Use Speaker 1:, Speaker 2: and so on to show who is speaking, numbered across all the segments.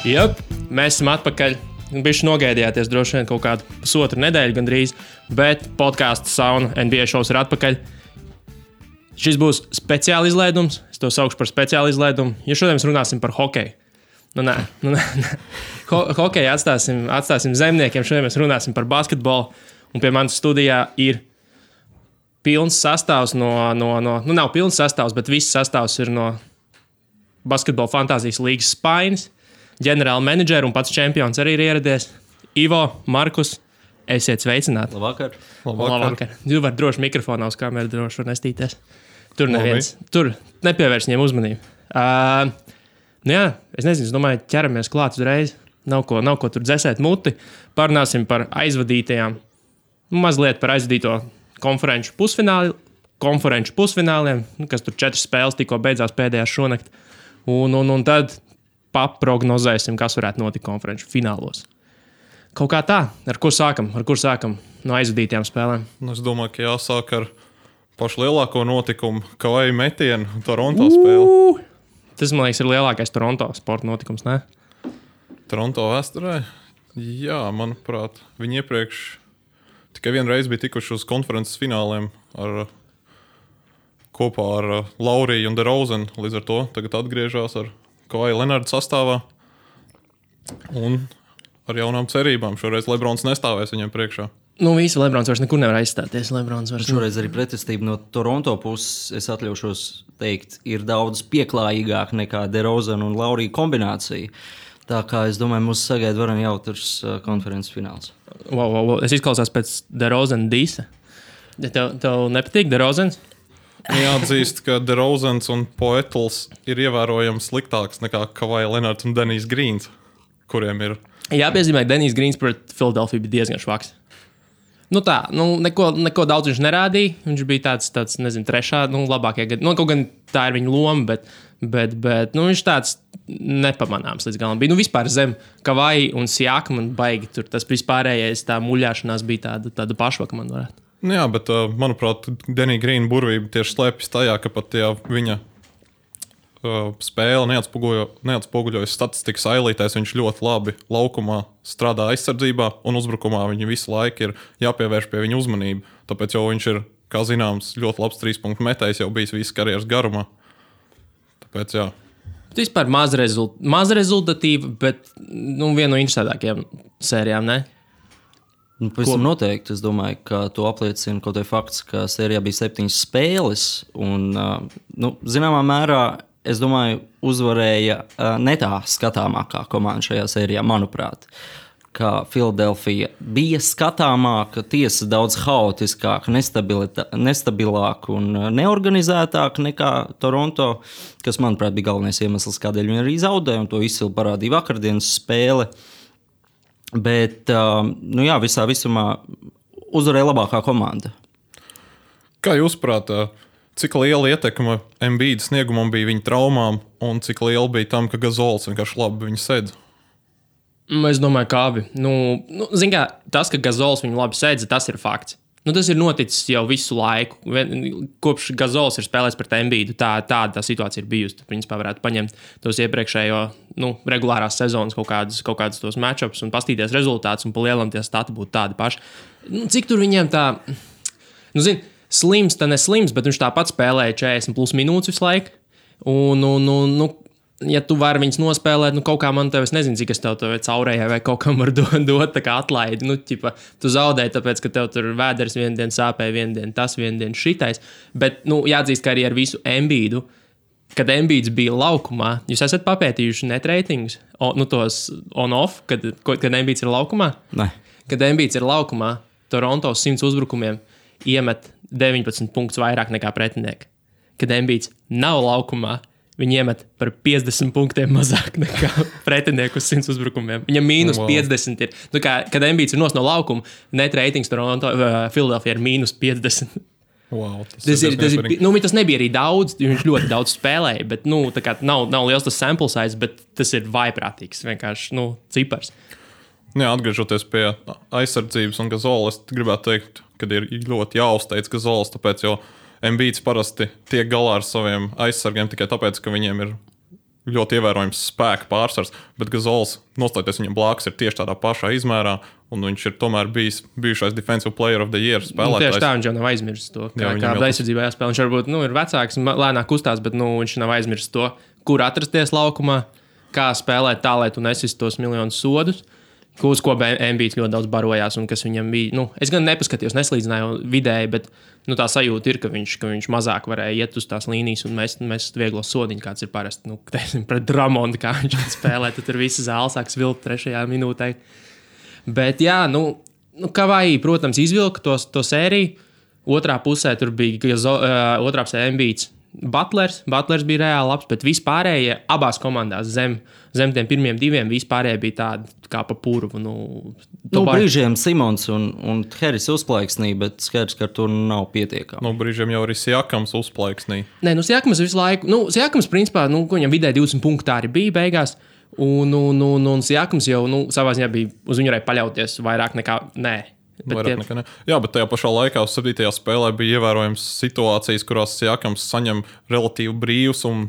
Speaker 1: Jep, mēs esam atpakaļ. Bišķi nogaidījāties droši vien kaut kādu pusotru nedēļu gandrīz, bet podcasts Sauna NBA šovs ir atpakaļ. Šis būs speciāli izlaidums, es to saukšu par speciāli izlaidumu, jo šodien mēs runāsim par hokeju. Nē. Hokeju atstāsim zemniekiem, šodien mēs runāsim par basketbolu, un pie manas studijā ir pilns sastāvs nav pilns sastāvs, bet viss sastāvs ir no Basketbola fantāzijas līgas spainis. Ģenerāla menedžera un pats čempions arī ir ieradies. Ivo, Markus, esiet sveicināti.
Speaker 2: Labvakar.
Speaker 1: Jūs varat droši mikrofonā uz kameru droši var nestīties. Tur neviens. Tur nepievērš viņiem uzmanību. Es nezinu, es domāju, ķeramies klāt uzreiz. Nav ko tur dzesēt muti. Parunāsim par aizvadītajām, mazliet par aizvadīto konferenču pusfināliem, kas tur 4 spēles tikko beidzās pēdējās šonakt. Un tad paprognozēsim, kas varētu notikt konferenču finālos. Kaut kā tā, ar kur sākam no aizvadītajām spēlēm?
Speaker 3: Es domāju, ka jāsāk ar pašu lielāko notikumu, Kawhi metienu Toronto spēli.
Speaker 1: Tas, man liekas, ir lielākais Toronto sporta notikums, ne?
Speaker 3: Toronto vēsturē? Jā, manuprāt, viņi iepriekš tikai vienreiz bija tikuši uz konferences fināliem kopā ar Lauriju un DeRozanu. Līdz ar to tagad atgriežās ar Kawhi Leonardu sastāvā un ar jaunām cerībām. Šoreiz Lebrons nestāvēs viņam priekšā.
Speaker 1: Visi Lebrons vairs nekur nevar aizstāties.
Speaker 2: Šoreiz arī pretestība no Toronto puses, es atļaušos teikt, ir daudz pieklājīgāk nekā DeRozanu un Lauriju kombinācija. Tā kā es domāju, mūs sagaida varam jautrs konferences fināls.
Speaker 1: Wow. Es izklausās pēc DeRozana dīsa. Tev nepatīk DeRozans?
Speaker 3: Jāatzīst, ka DeRozans un Poetls ir ievērojami sliktāks nekā Kawhi Leonards un Denijs Grīns, kuriem ir.
Speaker 1: Jāpiezīmē, ka Denijs Grīns pret Philadelphia bija diezgan švaks. Neko daudz viņš nerādīja. Viņš bija tāds nezinu, trešā, labākie gadi. Kaut gan tā ir viņa loma, bet viņš tāds nepamanāms līdz galam bija. Vispār zem Kawhi un Siakam un baigi tur tas vispārējais tā muļāšanās bija tāda pašvaka, man varētu.
Speaker 3: Jā, bet, manuprāt, Denija Grīna burvība tieši slēpjas tajā, ka pat viņa spēle neatspoguļojas statistikas ailītēs. Viņš ļoti labi laukumā strādā aizsardzībā un uzbrukumā. Viņa visu laiku ir jāpievērš pie viņa uzmanību. Tāpēc jau viņš ir, kā zināms, ļoti labs 3-punktu metējs jau bijis visas karjeras garumā. Tāpēc, jā.
Speaker 1: Vispār maz rezultatīva, bet viena no interesantākajām sērijām, ne?
Speaker 2: Pavisam noteikti. Es domāju, ka to apliecina kaut vai fakts, ka sērijā bija 7 spēles. Un, zināmā mērā, es domāju, uzvarēja ne tā skatāmākā komanda šajā sērijā, manuprāt. Ka Philadelphia bija skatāmāka, tiesa daudz haotiskāka, nestabilāka un neorganizētāka nekā Toronto, kas, manuprāt, bija galvenais iemesls, kādēļ viņi arī zaudēja, un to izcili parādīja vakardienas spēle. Bet, visā visumā uzvarēja labākā komanda.
Speaker 3: Kā jūs prāt, cik liela ietekme Embiida sniegumam bija viņa traumām un cik liela bija tam, ka Gazols vienkārši labi viņu sēdz?
Speaker 1: Es domāju, ka abi. Zin kā, tas, ka Gazols viņu labi sēdz, tas ir fakts. Tas ir noticis jau visu laiku. Kopš Gazols ir spēlējis pret Embiidu, tāda situācija ir bijusi. Principā varētu paņemt tos iepriekšējo regulārās sezonas kaut kādus tos matchups un pastīties rezultātus, un pa lielam tie stati būtu tādi paši. Cik tur viņiem tā... slims, tā neslims, bet viņš tāpat spēlēja 40+ minūtes visu laiku. Ja tu vari viņus nospēlēt, kaut kā man tev, es nezinu, cik es tev caurējai vai kaut kam var dot tā kā atlaidi. Tu zaudēji, tāpēc, ka tev tur vēders vienu dienu sāpēja, vienu dienu tas, vienu dienu šitais. Bet, jāatzīst, ka arī ar visu Embiidu, kad Embiids bija laukumā, jūs esat papētījuši net reitingus, tos on-off, kad Embiids ir laukumā?
Speaker 2: Nē.
Speaker 1: Kad Embiids ir laukumā, Toronto 100 uzbrukumiem iemet 19 punktus vairāk nekā pretinieki. Kad Embiids nav laukumā, viņi iemet par 50 punktiem mazāk nekā pretinieku uz 100 uzbrukumiem. Viņam -50 ir. Kad Embiids ir no laukuma, net ratings Toronto, Philadelphia ir -50.
Speaker 3: Wow,
Speaker 1: tas nebija arī daudz, viņš ļoti daudz spēlēja, bet nav liels tas sample size, bet tas ir vaiprātīgs, vienkārši cipars.
Speaker 3: Jā, atgriežoties pie aizsardzības un Gazola, es gribētu teikt, ka ir ļoti jāuzteic Gazols, tāpēc jau Embiids parasti tiek galā ar saviem aizsargiem tikai tāpēc, ka viņiem ir ļoti ievērojams spēka pārsvars, bet Gazols, nostājoties viņam blakus, ir tieši tādā pašā izmērā, un viņš ir tomēr bijušais Defensive Player of the Year spēlētājs.
Speaker 1: Tieši tā, viņš jau nav aizmirsis to, kāda aizsardzībā jāspēlē. Viņš varbūt ir vecāks, lēnāk kustās, bet viņš nav aizmirsis to, kur atrasties laukumā, kā spēlēt tā, lai tu nesistu tos miljonus sodus, uz ko Embiids ļoti daudz barojās un kas viņam bija. Es gan nepaskatījos, neslīdzināju vidēji, bet tā sajūta ir, ka viņš mazāk varēja iet uz tās līnijas un mest vieglo sodiņu, kāds ir parasti. Pret Dramondu, kā viņš spēlē, tad tur visi zāle sāk svilpt 3. minūtē. Bet jā, Kavai, protams, izvilka to sēriju. Otrā pusē tur bija otrā pusē Embiids. Butlers bija reāli labs, bet vispārējie abās komandās zem tiem pirmiem 2 vispārējie bija tādi kā pa purvu.
Speaker 2: Brīžiem Simons un Harris uzplaiksnīja, bet skaidrs, ka tur nav pietiekami.
Speaker 3: Brīžiem jau arī Siakams uzplaiksnīja.
Speaker 1: Nē, Siakams visu laiku. Siakams, principā, viņam vidē 20 punkti arī bija beigās. Un Siakams jau savā ziņā bija uz viņu varēja paļauties vairāk nekā nē.
Speaker 3: Jā, bet tajā pašā laikā uz 7. spēlē bija ievērojams situācijas, kurās Siakams saņem relatīvi brīvs un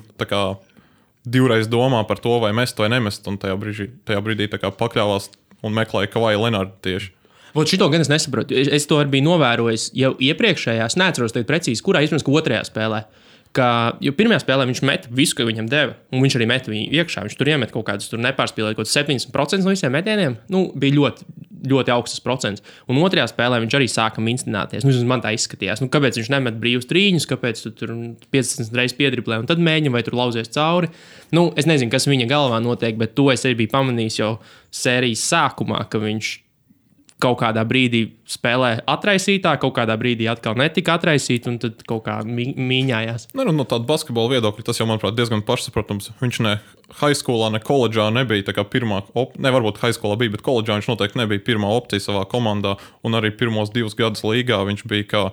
Speaker 3: divreiz domā par to, vai mest vai nemest. Un tajā brīdī pakļāvās un meklēja Kavai Lenardu tieši.
Speaker 1: Šito gan es nesaprotu. Es to arī biju novērojis jau iepriekšējās. Neatceros precīzi, kurā izpēc, ka 2. spēlē. Jo 1. spēlē viņš met visu, ko viņam deva, un viņš arī met viņu iekšā. Viņš tur iemet kaut kādus, tur nepārspīlēja kaut 70% no visiem metieniem. Bija ļoti, ļoti augsts procents. Un 2. spēlē viņš arī sāka minstināties. Man tā izskatījās. Kāpēc viņš nemet brīvus trīņus, kāpēc tu tur 50 reizes piedriblē un tad mēģina vai tur lauzies cauri. Es nezinu, kas viņa galvā notiek, bet to es arī biju pamanījis jau sērijas sākumā, ka viņš kaut kādā brīdī spēlē atraisītā, kaut kādā brīdī atkal netika atraisīta, un tad kaut kā mīņājās.
Speaker 3: No tāda basketbola viedokļa tas jau, manuprāt, diezgan pašsaprotams. Viņš ne high schoolā, ne koledžā nebija tā kā pirmā opcija. Varbūt high schoolā bija, bet koledžā viņš noteikti nebija pirmā opcija savā komandā, un arī pirmos 2 gadus līgā viņš bija kā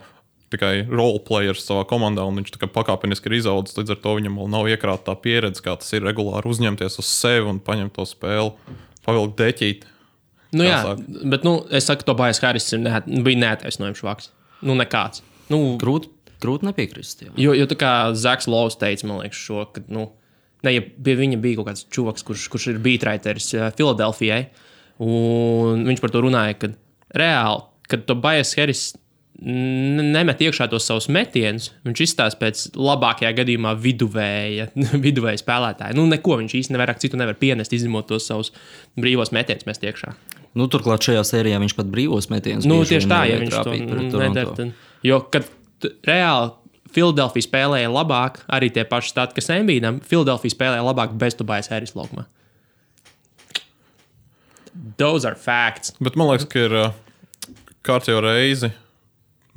Speaker 3: tikai role players savā komandā, un viņš tā kā pakāpeniski ir izaudzis. Līdz ar to viņam vēl nav iekrāta tā pieredze, kā tas ir regulāri uzņemties uz sevi un paņemt to spēli, pavilkt deķīt.
Speaker 1: Bet es saku, Tobias Harris bija neattaisnojams vaks. Nekāds.
Speaker 2: Grūti nepiekrist.
Speaker 1: Jo tā kā Zaks Lovs teica, man liekas, ka ja pie viņa bija kaut kāds čuvaks, kurš ir beatriteris Filadelfijai, un viņš par to runāja, ka reāli, kad Tobias Harris nemet iekšā tos savus metienus, viņš izstāsta pēc labākajā gadījumā viduvēja spēlētāja. Neko viņš īsti nevairāk citu nevar pienest, izņemot tos savus brīvos metienus mest iekšā.
Speaker 2: Turklāt šajā sērijā viņš pat brīvos metienus
Speaker 1: tieši tā, ja viņš to nedara. Jo, kad reāli Filadelfija spēlēja labāk, arī tie paši stati, kas Embiidam, Filadelfija spēlēja labāk bez Tobias Harris laukumā. Those are facts.
Speaker 3: Bet man liekas, ka ir kārtējo reizi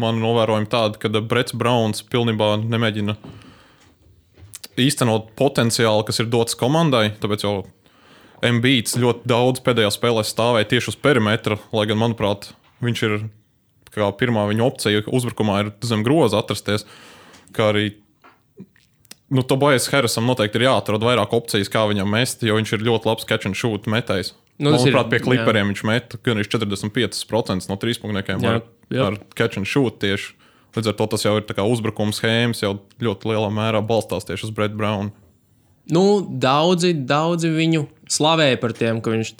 Speaker 3: man novērojami tādi, ka Brets Browns pilnībā nemēģina īstenot potenciālu, kas ir dots komandai, tāpēc jau Embiids ļoti daudz pēdējā spēlē stāvēja tieši uz perimetra, lai gan, manuprāt, viņš ir kā pirmā viņa opcija uzbrukumā ir zem groza atrasties, kā arī Tobias Harrisam noteikti ir jāatrod vairāk opcijas, kā viņam mest, jo viņš ir ļoti labs catch and shoot metējs. Manuprāt, pie Clipperiem viņš met gan 45% no trīspunktniekiem ar catch and shoot tieši. Līdz ar to tas jau ir tā kā uzbrukuma schēmas, jau ļoti lielā mērā balstās tieši uz Brett Brownu.
Speaker 1: Daudzi viņu slavēja par tiem, ka viņš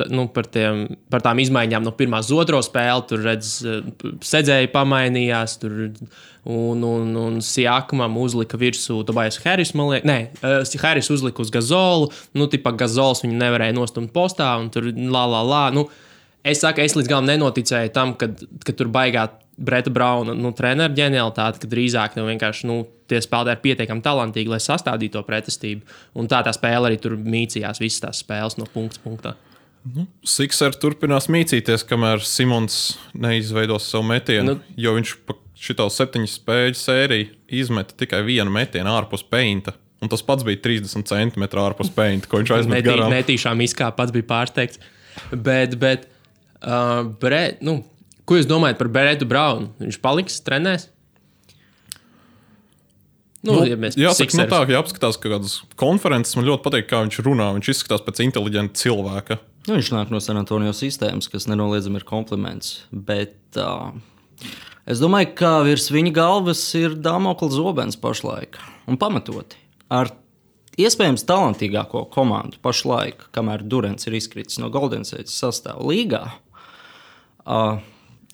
Speaker 1: par tām izmaiņām no pirmās uz otro spēli, tur sedzēji pamainījās, un Siakamam uzlika virsū Tobias Harris, man liekas, Harris uzlika uz Gazolu, Gazols viņu nevarēja nostumt postā, un tur es saku, es līdz galam nenoticēju tam, ka tur baigā Breta Brauna treneru ģenialitāte, ka drīzāk vienkārši tie spēlētāji ir pietiekami talantīgi, lai sastādītu to pretestību. Un tā spēle arī tur mīcījās visas tās spēles no punkta punktā.
Speaker 3: Sixers turpinās mīcīties, kamēr Simons neizveidos savu metienu, jo viņš šito 7 spēļu sēriju izmeta tikai vienu metienu ārpus peinta. Un tas pats bija 30 centimetri ārpus peinta, ko viņš aizmet garām.
Speaker 1: Netīšām izkāpa, pats bija pārsteigts. Bet ko jūs domājat par Bretu Braunu? Viņš paliks, trenēs?
Speaker 3: Jāsaka, tā, ja apskatās kādas konferences, man ļoti patīk, kā viņš runā. Viņš izskatās pēc inteliģenta cilvēka.
Speaker 2: Viņš nāk no San Antonio sistēmas, kas nenoliedzami ir kompliments. Bet es domāju, ka virs viņa galvas ir Damokla zobens pašlaik. Un pamatoti. Ar iespējams talantīgāko komandu pašlaik, kamēr Durants ir izkritis no Golden State sastāva līgā.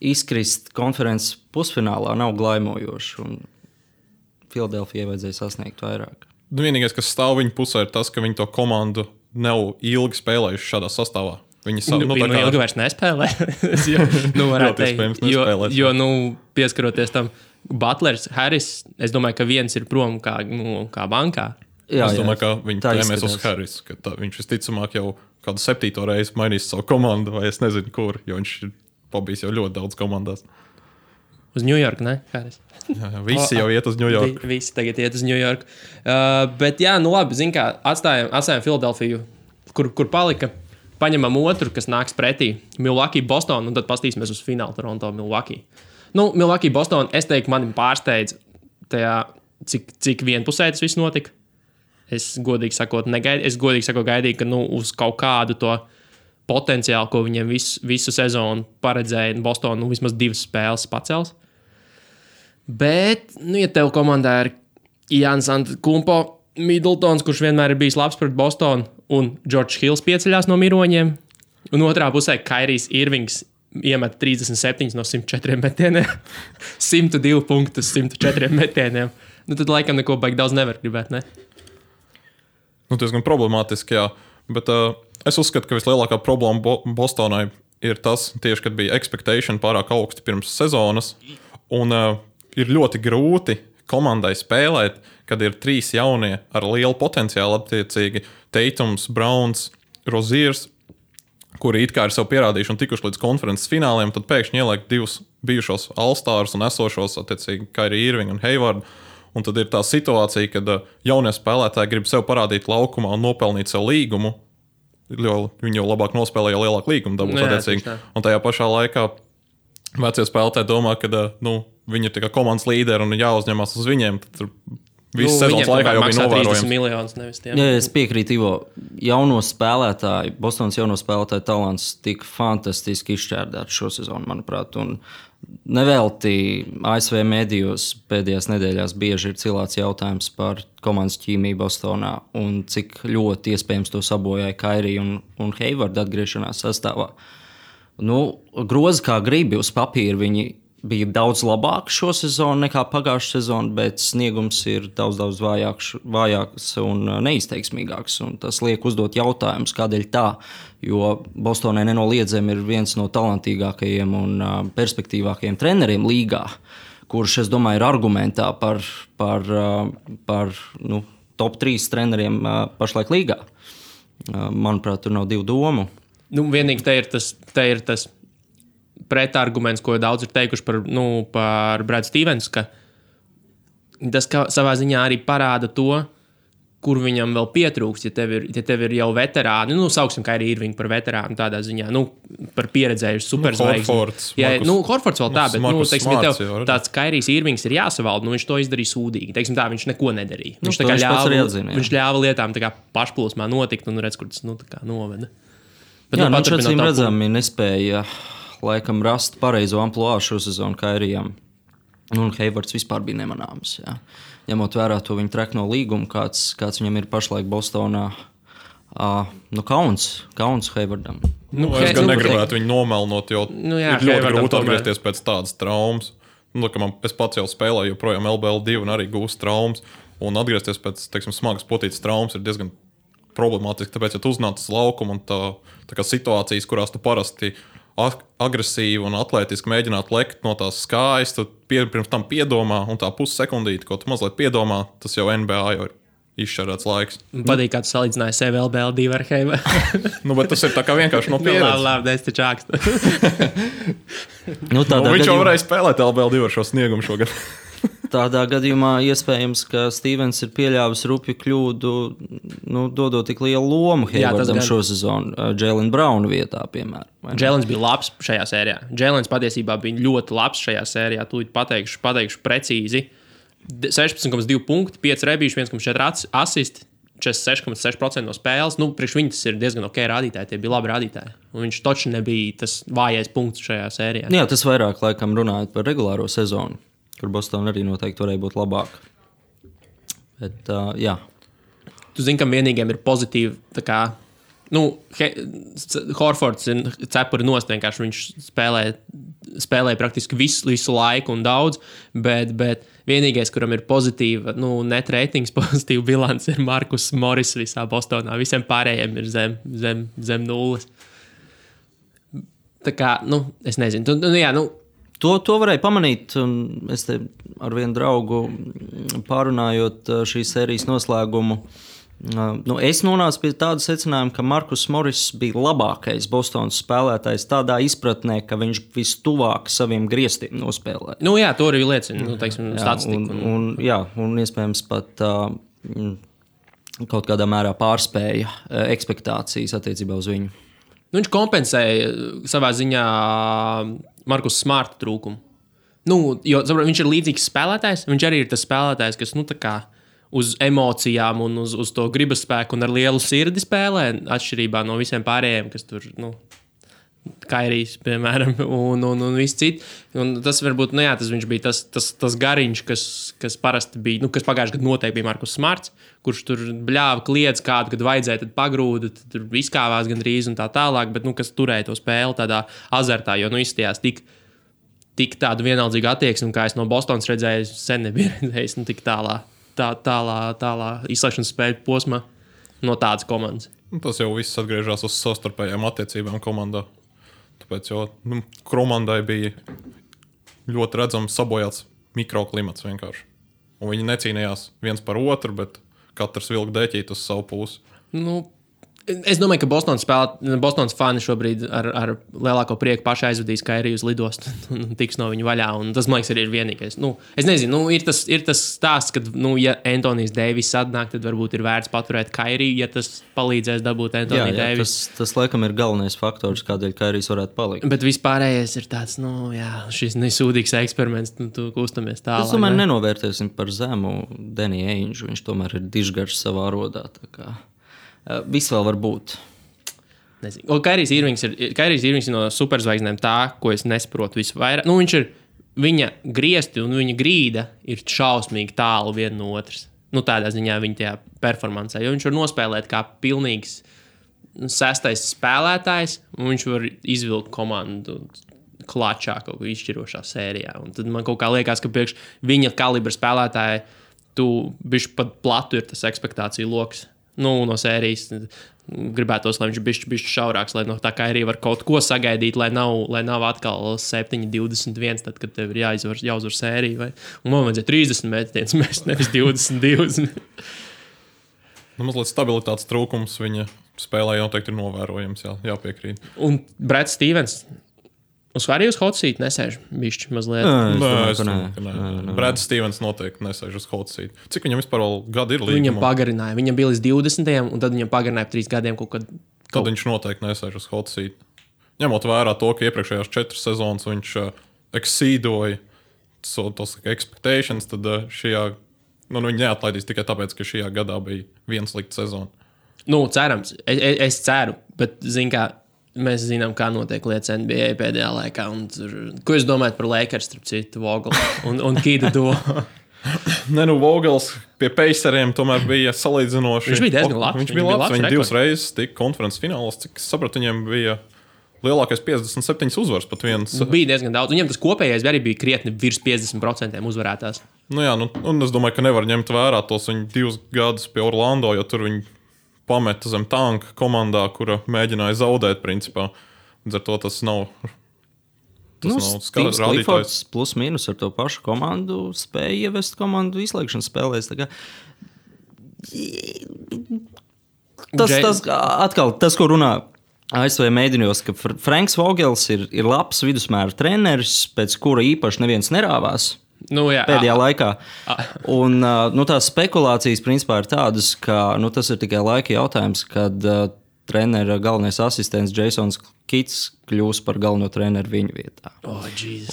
Speaker 2: Izkrist konferences pusfinālā nav glaimojoši, un Filadelfijai vajadzēja sasniegt vairāk.
Speaker 3: Vienīgais, kas stāv viņa pusē, ir tas, ka viņi to komandu nav ilgi spēlējuši šādā sastāvā. Viņi
Speaker 1: ilgi vairs nespēlē. Varētu teikt, jo pieskaroties tam, Butlers, Harris, es domāju, ka viens ir prom kā bankā.
Speaker 3: Es domāju, ka viņi tēmēs uz Harris, ka viņš visticamāk jau kādu 7. reizi mainīs savu komandu, vai es nezinu, kur, jo viņš ir pabijis jau ļoti daudz komandās.
Speaker 1: Uz New York, ne, Harris?
Speaker 3: Jā, visi jau iet uz New York.
Speaker 1: Visi tagad iet uz New York. Bet jā, labi, zin kā, atstājam Filadelfiju, kur palika. Paņemam otru, kas nāks pretī. Milwaukee, Boston, un tad pastīsimies uz finālu Toronto, Milwaukee. Milwaukee, Boston, es teiktu, mani pārsteidz tajā, cik vienpusēji tas viss notika. Es godīgi sakot gaidīju, ka uz kaut kādu to potenciālu, ko viņiem visu sezonu paredzēja Boston, vismaz 2 spēles pacels. Bet, ja tev komandā ir Jānis Antetokounmpo, Middletons, kurš vienmēr ir bijis labs pret Bostonu, un George Hills pieceļās no miroņiem, un otrā pusē Kairijs Irvings iemet 37 no 104 metieniem, 102 punktus 104 metieniem. Tad laikam neko baigi daudz nevar gribēt, ne?
Speaker 3: Diezgan problemātiski, jā. Bet es uzskatu, ka vislielākā problēma Bostonai ir tas, tieši, kad bija expectation pārāk augsti pirms sezonas, un ir ļoti grūti komandai spēlēt, kad ir 3 jaunie ar lielu potenciālu, attiecīgi Tatums, Browns, Roziers, kuri it kā ir sev pierādījuši un tikuši līdz konferences fināliem, tad pēkšņi ieliek 2 bijušos All-Stars un esošos, attiecīgi, Kyrie Irving un Hayward. Un tad ir tā situācija, kad jaunie spēlētāji grib sev parādīt laukumā un nopelnīt sev līgumu, jo viņi jau labāk nospēlē, jo lielāku līgumu dabūs, attiecīgi. Un tajā pašā laikā vecie spēlētāji domā, ka viņi ir komandas līderi un jāuzņemās uz viņiem. Tad visu sezonas laikā jau bija novērojams.
Speaker 1: Miljonus, nevis tiem.
Speaker 2: Jā, es piekrītu, Ivo. Bostonas jauno spēlētāju talants tika fantastiski izšķērdēts šo sezonu, manuprāt. Un nevelti ASV medijos pēdējās nedēļās bieži ir cilāts jautājums par komandas ķīmiju Bostonā un cik ļoti iespējams to sabojāja Kyrie un Hayward atgriešanās sastāvā. Grozi kā gribi uz papīra viņi bija daudz labāks šo sezonu nekā pagājušā sezona, bet sniegums ir daudz vājāks un neizteiksmīgāks. Un tas liek uzdot jautājumus, kādēļ tā, jo Bostonai nenoliedzami ir viens no talantīgākajiem un perspektīvākajiem treneriem līgā, kurš, es domāju, ir argumentā par top 3 treneriem pašlaik līgā. Manuprāt, tur nav 2 domu.
Speaker 1: Vienīgi te ir tas pretarguments, ko daudz ir teikuši par Bradu Stevensu, ka tas savā ziņā arī parāda to, kur viņam vēl pietrūkst, ja tev ir jau veterāni, sauksim Kyrie Irvingu par veterānu tādā ziņā, par pieredzējuši superzvaigzni. Horfords vēl tā, bet, teiksim, ja tev tāds Kyries Irvings ir jāsavalda, viņš to izdarīja sūdīgi. Teiksim tā, viņš neko nedarīja. Viņš ļāva lietām tā kā pašplūsmā notikt un redz, kur tas noveda. Bet,
Speaker 2: viņš acīm redzami nespēja laikam rast pareizo amploā šo sezonu Kairijam. Un Haywards vispār bija nemanāms. Jā. Ņemot vērā to viņa trekno līgumu, kāds viņam ir pašlaik Bostonā. Kauns Haywardam.
Speaker 3: Es gan negribētu viņu nomelnot, jo ir ļoti grūti atgriezties pēc tādas traumas. Es pats jau spēlēju joprojām LBL2 un arī gūstu traumas. Un atgriezties pēc, smagas potītas traumas ir diezgan problemātiski, tāpēc, ja tu uznāc uz laukumu un tā kā situācijas, kurās tu parasti agresīvi un atlētiski mēģināt lekt no tās skājas, tad pirms tam piedomā, un tā pussekundīte, ko tu mazliet piedomā, tas jau NBA jau ir izšķērēts laiks.
Speaker 1: Patīk, kā tu salīdzināji sevi LBL2 ar Haywardu.
Speaker 3: Bet tas ir tā kā vienkārši no pieredzes.
Speaker 1: Labi, es taču ākstu.
Speaker 3: Viņš jau varēja spēlēt LBL2 ar šo sniegumu šogad.
Speaker 2: Tādā gadījumā iespējams, ka Stevens ir pieļāvis rupju kļūdu, dodot tik lielu lomu Haywardam šo sezonu, Jaylen Browna vietā, piemēram.
Speaker 1: Jaylens bija labs šajā sērijā. Jaylens patiesībā bija ļoti labs šajā sērijā. Tūlīt pateikšu precīzi. 16,2 punkti, 5 rebīši, 1,4 asisti, 46,6% no spēles. Priekš viņi tas ir diezgan ok rādītāji, tie bija labi rādītāji. Un viņš toči nebija tas vājais punkts šajā sērijā.
Speaker 2: Jā, tas vairāk laikam runājot par regulāro sezonu, kur Boston arī noteikti varēja būt labāk. Bet, jā.
Speaker 1: tu zini, ka vienīgiem ir pozitīvi, tā kā, Horfords ir cepuri nost, vienkārši viņš spēlē praktiski visu laiku un daudz, bet vienīgais, kuram ir pozitīva, net ratings, pozitīva bilance, ir Markus Morris visā Bostonā. Visiem pārējiem ir zem nulles. Tā kā, es nezinu.
Speaker 2: To varēja pamanīt, un es te ar vienu draugu pārunājot šīs sērijas noslēgumu. Es nonācu pie tāda secinājuma, ka Markus Morris bija labākais Bostonas spēlētājs tādā izpratnē, ka viņš vistuvāk saviem griestiem nospēlēja.
Speaker 1: To arī liecina, statistika.
Speaker 2: Un iespējams pat kaut kādā mērā pārspēja ekspektācijas attiecībā uz viņu.
Speaker 1: Viņš kompensēja savā ziņā Markus Smarta trūkumu. Jo viņš ir līdzīgs spēlētājs, viņš arī ir tas spēlētājs, kas, tā kā uz emocijām un uz to gribas spēku un ar lielu sirdi spēlē, atšķirībā no visiem pārējiem, kas tur, Kairijs, piemēram, un viss cits. Un tas varbūt, viņš bija tas gariņš, kas parasti bija, kas pagājušajā gadā noteikti bija Markus Smarts, kurš tur bļāva kliedz kādu, kad vajadzēja, tad pagrūda, tad tur izkāvās gandrīz un tā tālāk, bet, kas turēja to spēli tādā azartā, jo, izstījās tik tādu vienaldzīgu attieksmi, kā es no Bostonas redzēju, sen nebija redzējis, tik tālā izslēgšanas spēļu posmā no tādas komandas.
Speaker 3: Tas jau viss atgriežas uz savstarpējām attiecībām komandā. Tāpēc jau komandai bija ļoti redzams sabojāts mikroklimats vienkārši. Un viņi necīnījās viens par otru, bet katrs vilka deķīt uz savu pusi.
Speaker 1: Es domāju, ka Bostonas fani šobrīd ar lielāko prieku paši aizvedīs Kairiju uz lidostu un tiks no viņa vaļā. Un tas, man liekas, arī ir vienīgais. Es nezinu, ir tas stāsts, ka, ja Antonijs Deivis atnāk, tad varbūt ir vērts paturēt Kairiju, ja tas palīdzēs dabūt Antoniju Deivis.
Speaker 2: Tas laikam ir galvenais faktors, kādēļ Kairijs varētu palikt.
Speaker 1: Bet vispārējais ir tāds, šis nesūdīgs eksperiments, tu kustamies tālāk.
Speaker 2: Es domāju, nenovērtēsim par zemu Deniju Ainžu. Viņš tomēr ir dižgarš savā rodā, tā kā. Viss vēl var būt.
Speaker 1: Kairijs Irvings ir no superzvaigznēm tā, ko es nesaprotu visvairāk. Viņš ir, viņa griesti un viņa grīda ir šausmīgi tālu viena no otras. Tādā ziņā viņa tajā performancē, jo viņš var nospēlēt kā pilnīgs sestais spēlētājs, un viņš var izvilkt komandu klačā kaut ko izšķirošā sērijā. Un tad man kaut kā liekas, ka priekš viņa kalibra spēlētāja tu bišķi pat platu ir tas ekspektāciju loks. No sērijas gribētos, lai viņš bišķi šaurāks, lai no tā kā arī var kaut ko sagaidīt, lai nav atkal 7-21, tad, kad tev ir jāuzvar sērija. Un man vajadzēja 30 metienus mest, nevis 22.
Speaker 3: Mazliet stabilitātes trūkums viņa spēlē noteikti ir novērojams, jāpiekrīt.
Speaker 1: Un Brats Stevens arī uz hot seat nesēž bišķi mazliet.
Speaker 3: Nē. Brats Stevens noteikti nesēž uz hot seat. Cik viņam vispār vēl gadi ir līgumā?
Speaker 1: Viņam pagarināja. Viņam bija līdz 20. un tad viņam pagarināja 3 gadiem kaut kad.
Speaker 3: Tad viņš noteikti nesēž uz hot seat. Ņemot vērā to, ka iepriekšējās 4 sezonas viņš exceedoja tos expectations, tad šajā, viņi neatlaidīs tikai tāpēc, ka šajā gadā bija viena slikta sezona.
Speaker 1: Cerams. Es ceru, bet kā mēs zinām, kā notiek lietas NBA pēdējā laikā. Ko jūs domājat par Lakers, starp citu, Vogelu un Kīdu do?
Speaker 3: Vogels pie Paceriem tomēr bija salīdzinoši.
Speaker 1: Viņš bija diezgan labs.
Speaker 3: Viņš bija labs. Viņi 2 reizes tika konferences finālos. Cik es sapratu, viņiem bija lielākais 57 uzvaras pat viens.
Speaker 1: Bija diezgan daudz. Viņam tas kopējais arī bija krietni virs 50% uzvarētās.
Speaker 3: Un es domāju, ka nevar ņemt vērā tos viņu 2 gadus pie Orlando, jo tur viņi pameta zem tanka komandā, kura mēģināja zaudēt, principā. Līdz ar to tas nav
Speaker 2: skats rādītājs. Plus mīnus ar to pašu komandu spēja ievest komandu izslēgšanas spēlēs. Tas, ko runā ASV mēdījos, ka Franks Vogels ir labs vidusmēra treneris, pēc kura īpaši neviens nerāvās. Pēdējā laikā. Un tās spekulācijas principā ir tādas, ka tas ir tikai laika jautājums, kad trenera galvenais asistents Jasons Kits kļūs par galveno treneru viņu vietā.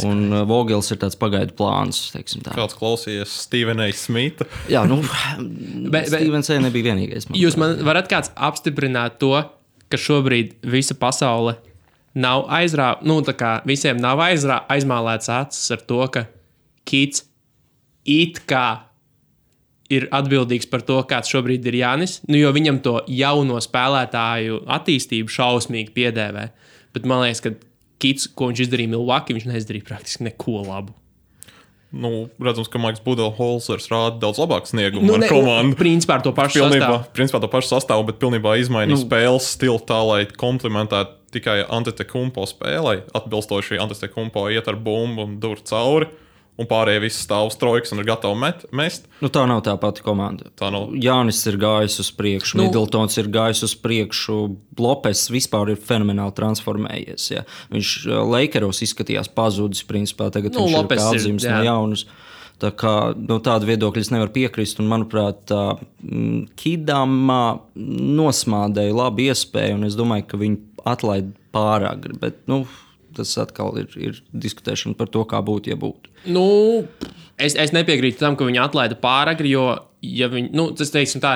Speaker 2: Un Vogels ir tāds pagaidu plāns, teiksim tā.
Speaker 3: Kāds klausījies Stevena Smitha?
Speaker 2: Jā, Stevens nebija vienīgais.
Speaker 1: Jūs man varat kāds apstiprināt to, ka šobrīd visa pasaule nav visiem nav aizmālēts acis ar to, ka Kits it kā ir atbildīgs par to, kāds šobrīd ir Jānis, jo viņam to jauno spēlētāju attīstību šausmīgi piedēvē. Bet man liekas, ka Kits, ko viņš izdarīja Milwaukee, viņš neizdarīja praktiski neko labu.
Speaker 3: Redzams, ka Maiks Budenholzers rāda daudz labāku sniegumu ar komandu.
Speaker 1: Principā ar to pašu sastāvu.
Speaker 3: Principā to pašu sastāvu, bet pilnībā izmainīja spēles stilu tā, lai komplementētu tikai Antetokounmpo spēlei. Atbilstoši Antetokounmpo iet ar bumbu un dur cauri. Un pārējie visi stāv uz trojkas un ir gatavi mest.
Speaker 2: Tā nav tā pati komanda. Jānis ir gājis uz priekšu, Middletons ir gājis uz priekšu, Lopes vispār ir fenomenāli transformējies. Ja. Viņš Lakeros izskatījās pazudis, principā tagad viņš ir kā atzīmes no jaunas. Tā kā tādu viedokļu es nevaru piekrist, un manuprāt, Kidam nosmādēja labu iespēju, un es domāju, ka viņi atlaid pāragri, bet, tas atkal ir diskutēšana par to, kā būtu, ja būtu.
Speaker 1: Es nepiekrītu tam, ka viņi atlaida pāragri, jo, ja viņi, tas teiksim tā,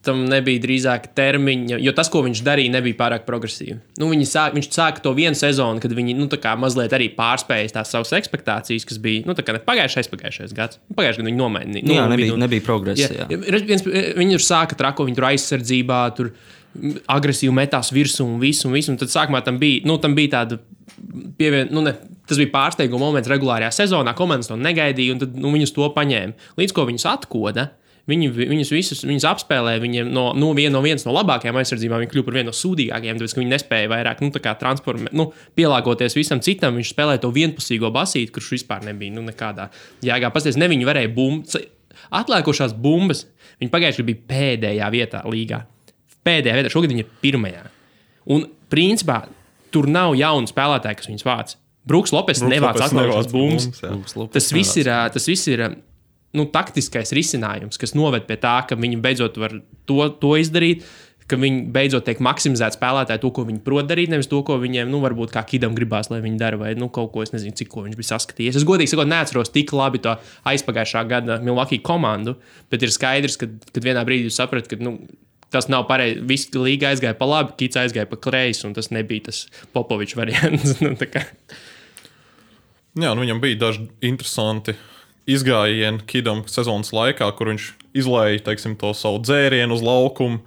Speaker 1: tam nebija drīzāk termiņa, jo tas, ko viņš darīja, nebija pārāk progresīvi. Viņš sāka to vienu sezonu, kad viņi, mazliet arī pārspējas tās savas ekspektācijas, kas bija, pagājušais gads. Pagājušajā gadā viņi nomainīja.
Speaker 2: Nebija progresa.
Speaker 1: Viņi tur sāka trako, viņi tur aizsardzībā, tur agresīvi metās virsū un visu. Un tad sākumā tam bija tāda tas bija pārsteiguma moments regulārajā sezonā, komandas to negaidīja, un tad viņus to paņēma. Līdz ko viņus atkoda, viņus apspēlēja, viņiem viens no labākajām aizsardzībām, viņi kļuva par vienu no sūdīgākajiem, tāpēc, ka viņi nespēja vairāk, pielāgoties visam citam, viņš spēlēja to vienpusīgo basīti, kurš vispār nebija, nekādā jēgā. Pasties, ne viņi varēja atlēkošās bumbas, viņi pagājuši bija pēdējā vietā līgā. Šogad viņi ir pirmajā. Un, principā, tur nav jaunu spēlētāju, kas viņus vāc. Bruks Lopes nevāc atlēkošās bumbas. Tas viss ir taktiskais risinājums, kas noved pie tā, ka viņi beidzot var to izdarīt, ka viņi beidzot tiek maksimizēt spēlētāji to, ko viņi prot darīt, nevis to, ko viņiem, varbūt kā Kidam gribās, lai viņi dara, vai kaut ko, es nezinu, cik ko viņš bija saskatījies. Es godīgi sakot, neatceros tik labi to aizpagājušā gada Milwaukee komandu, bet ir skaidrs, ka vienā brīdī jūs saprat, ka, tas nav pareizi. Visi līga aizgāja pa labi, Kits aizgāja pa kreisi, un tas nebija tas Popovičs variants.
Speaker 3: Viņam bija daži interesanti izgājieni Kidam sezonas laikā, kur viņš izlēja, teiksim, to savu dzērienu uz laukumu.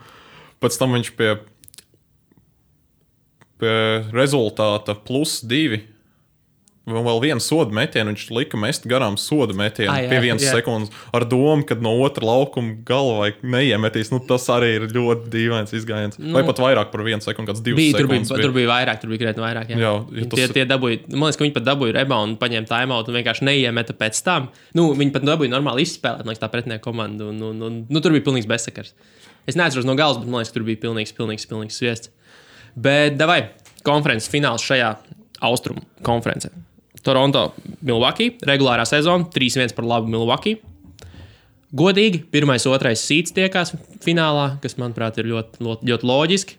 Speaker 3: Pēc tam viņš pie rezultāta +2 vēl vienu sodu metienu, viņš lika mest garām sodu metienu pie 1 sekundes ar domu, ka no otra laukuma galvai neiemetīs. Tas arī ir ļoti dīvains izgājiens. Vai pat vairāk par 1 sekundi, kāds 2 sekundes.
Speaker 1: Tur bija vairāk, tur bija krietni vairāk. Tie dabūja, man liekas, ka viņi pat dabūja reboundu, paņēma timeout un vienkārši neiemeta pēc tam. Viņi pat dabūja normāli izspēlēt, man liekas, tā pretinieka komanda. Tur bija pilnīgs bezsakars. Es neatceros no galas, bet man liekas, ka tur bija pilnīgs sviests. Bet davai, konferences fināls šajā austrumu konferencē. Toronto, Milwaukee, regulārā sezona, 3-1 par labu Milwaukee. Godīgi, 1. 2. seeds tiekās finālā, kas, manuprāt, ir ļoti, ļoti loģiski.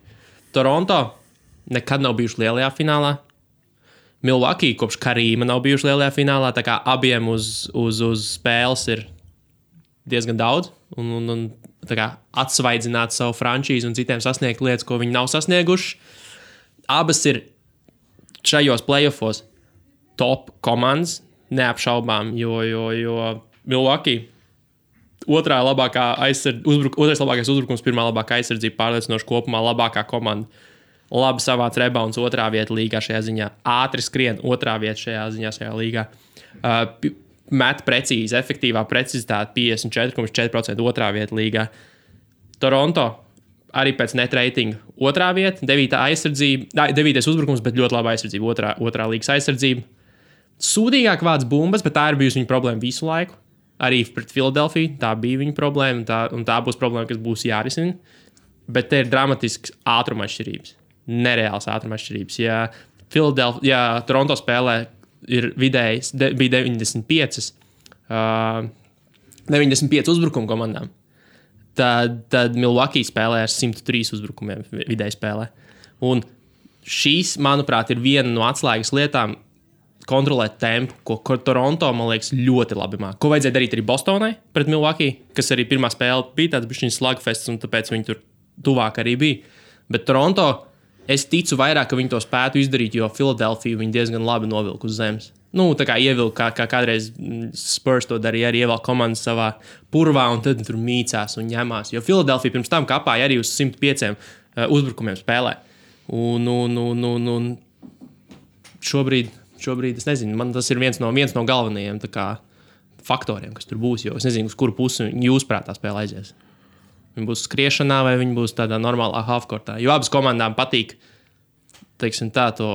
Speaker 1: Toronto nekad nav bijuši lielajā finālā. Milwaukee kopš Karīma nav bijuši lielajā finālā, tā kā abiem uz spēles ir diezgan daudz. Un tā kā atsvaidzināt savu frančīzi un citiem sasniegt lietas, ko viņi nav sasnieguši. Abas ir šajos playoffos top komandas, neapšaubām, jo Milwaukee otrais labākais uzbrukums, pirmā labākā aizsardzība, pārliecinoši kopumā labākā komanda. Labi savāc rebounds, otrā vieta līgā šajā ziņā. Ātri skrien, otrā vieta šajā līgā. Met precīzi, efektīvā precizitāte 54,4%, otrā vieta līgā. Toronto arī pēc net ratinga otrā vieta, 9. aizsardzība, 9. uzbrukums, bet ļoti laba aizsardzība, otrā līgas aizsardzība. Sūdīgāk vāc bumbas, bet tā ir bijusi viņa problēma visu laiku. Arī pret Filadelfiju tā bija viņa problēma, un tā būs problēma, kas būs jārisina. Bet te ir dramatisks ātruma atšķirības. Nereāls ātruma atšķirības. Ja Toronto spēlē ir vidēji bija 95 uzbrukumu komandām, tad Milwaukee spēlē ar 103 uzbrukumiem vidēji spēlē. Un šīs, manuprāt, ir viena no atslēgas lietām kontrolēt tempu, ko Toronto, man liekas, ļoti labi māk. Ko vajadzēja darīt arī Bostonai pret Milwaukee, kas arī pirmā spēle bija tāds bišķiņas slugfests, un tāpēc viņi tur tuvāk arī bija. Bet Toronto, es ticu vairāk, ka viņi to spētu izdarīt, jo Filadelfiju viņi diezgan labi novilka uz zemes. tā kā ievilka, kā kādreiz Spurs to darīja, arī ievelk komandas savā purvā, un tad tur mīcās un ņemās. Jo Philadelphia pirms tam kapāja arī uz 105 uzbrukumiem spēlē. Un šobrīd, es nezinu, man tas ir viens no galvenajiem tā kā faktoriem, kas tur būs, jo es nezinu, uz kuru pusi jūs prātā spēle aizies. Viņi būs skriešanā vai viņi būs tādā normālā halfcourtā. Jo abas komandām patīk, teiksim tā, to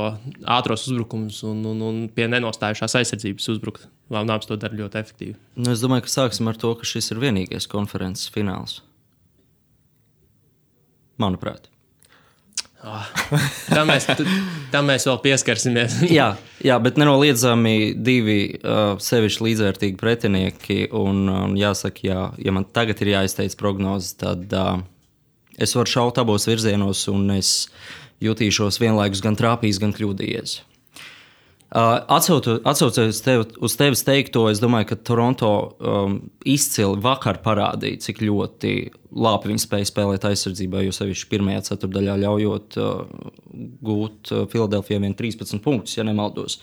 Speaker 1: ātros uzbrukums un pie nenostājušās aizsardzības uzbrukt. Abas to dara ļoti efektīvi.
Speaker 2: Nu, es domāju, ka sāksim ar to, ka šis ir vienīgais konferences fināls. Manuprāt.
Speaker 1: Tam mēs vēl pieskarsimies.
Speaker 2: jā, bet nenoliedzami divi sevišķi līdzvērtīgi pretinieki. Un jāsaka, ja man tagad ir jāizteic prognozes, tad es varu šaut abos virzienos, un es jutīšos vienlaikus gan trāpījis, gan kļūdījies. Atsaucoties uz tevis teikto, es domāju, ka Toronto izcili vakar parādīja, cik ļoti labi viņi spēja spēlēt aizsardzībā, jo sevišķi pirmajā ceturdaļā ļaujot gūt Philadelphia 13 punktus, ja nemaldos.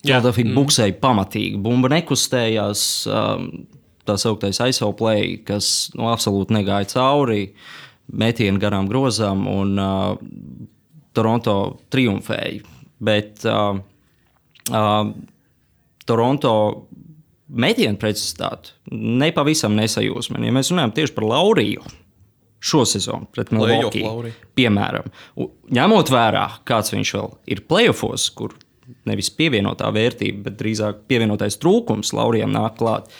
Speaker 2: Philadelphia buksēja pamatīgi, bumba nekustējās, tā sauktais ISO play, kas absolūti negāja cauri, metieni garām grozām, un Toronto triumfēja. Bet Toronto metienu precizitāti nepavisam nesajūsmē. Ja mēs runājam tieši par Lauriju šo sezonu pret Milwaukee, piemēram, ņemot vērā, kāds viņš vēl ir playoffos, kur nevis pievienotā vērtība, bet drīzāk pievienotais trūkums Laurijam nāk klāt,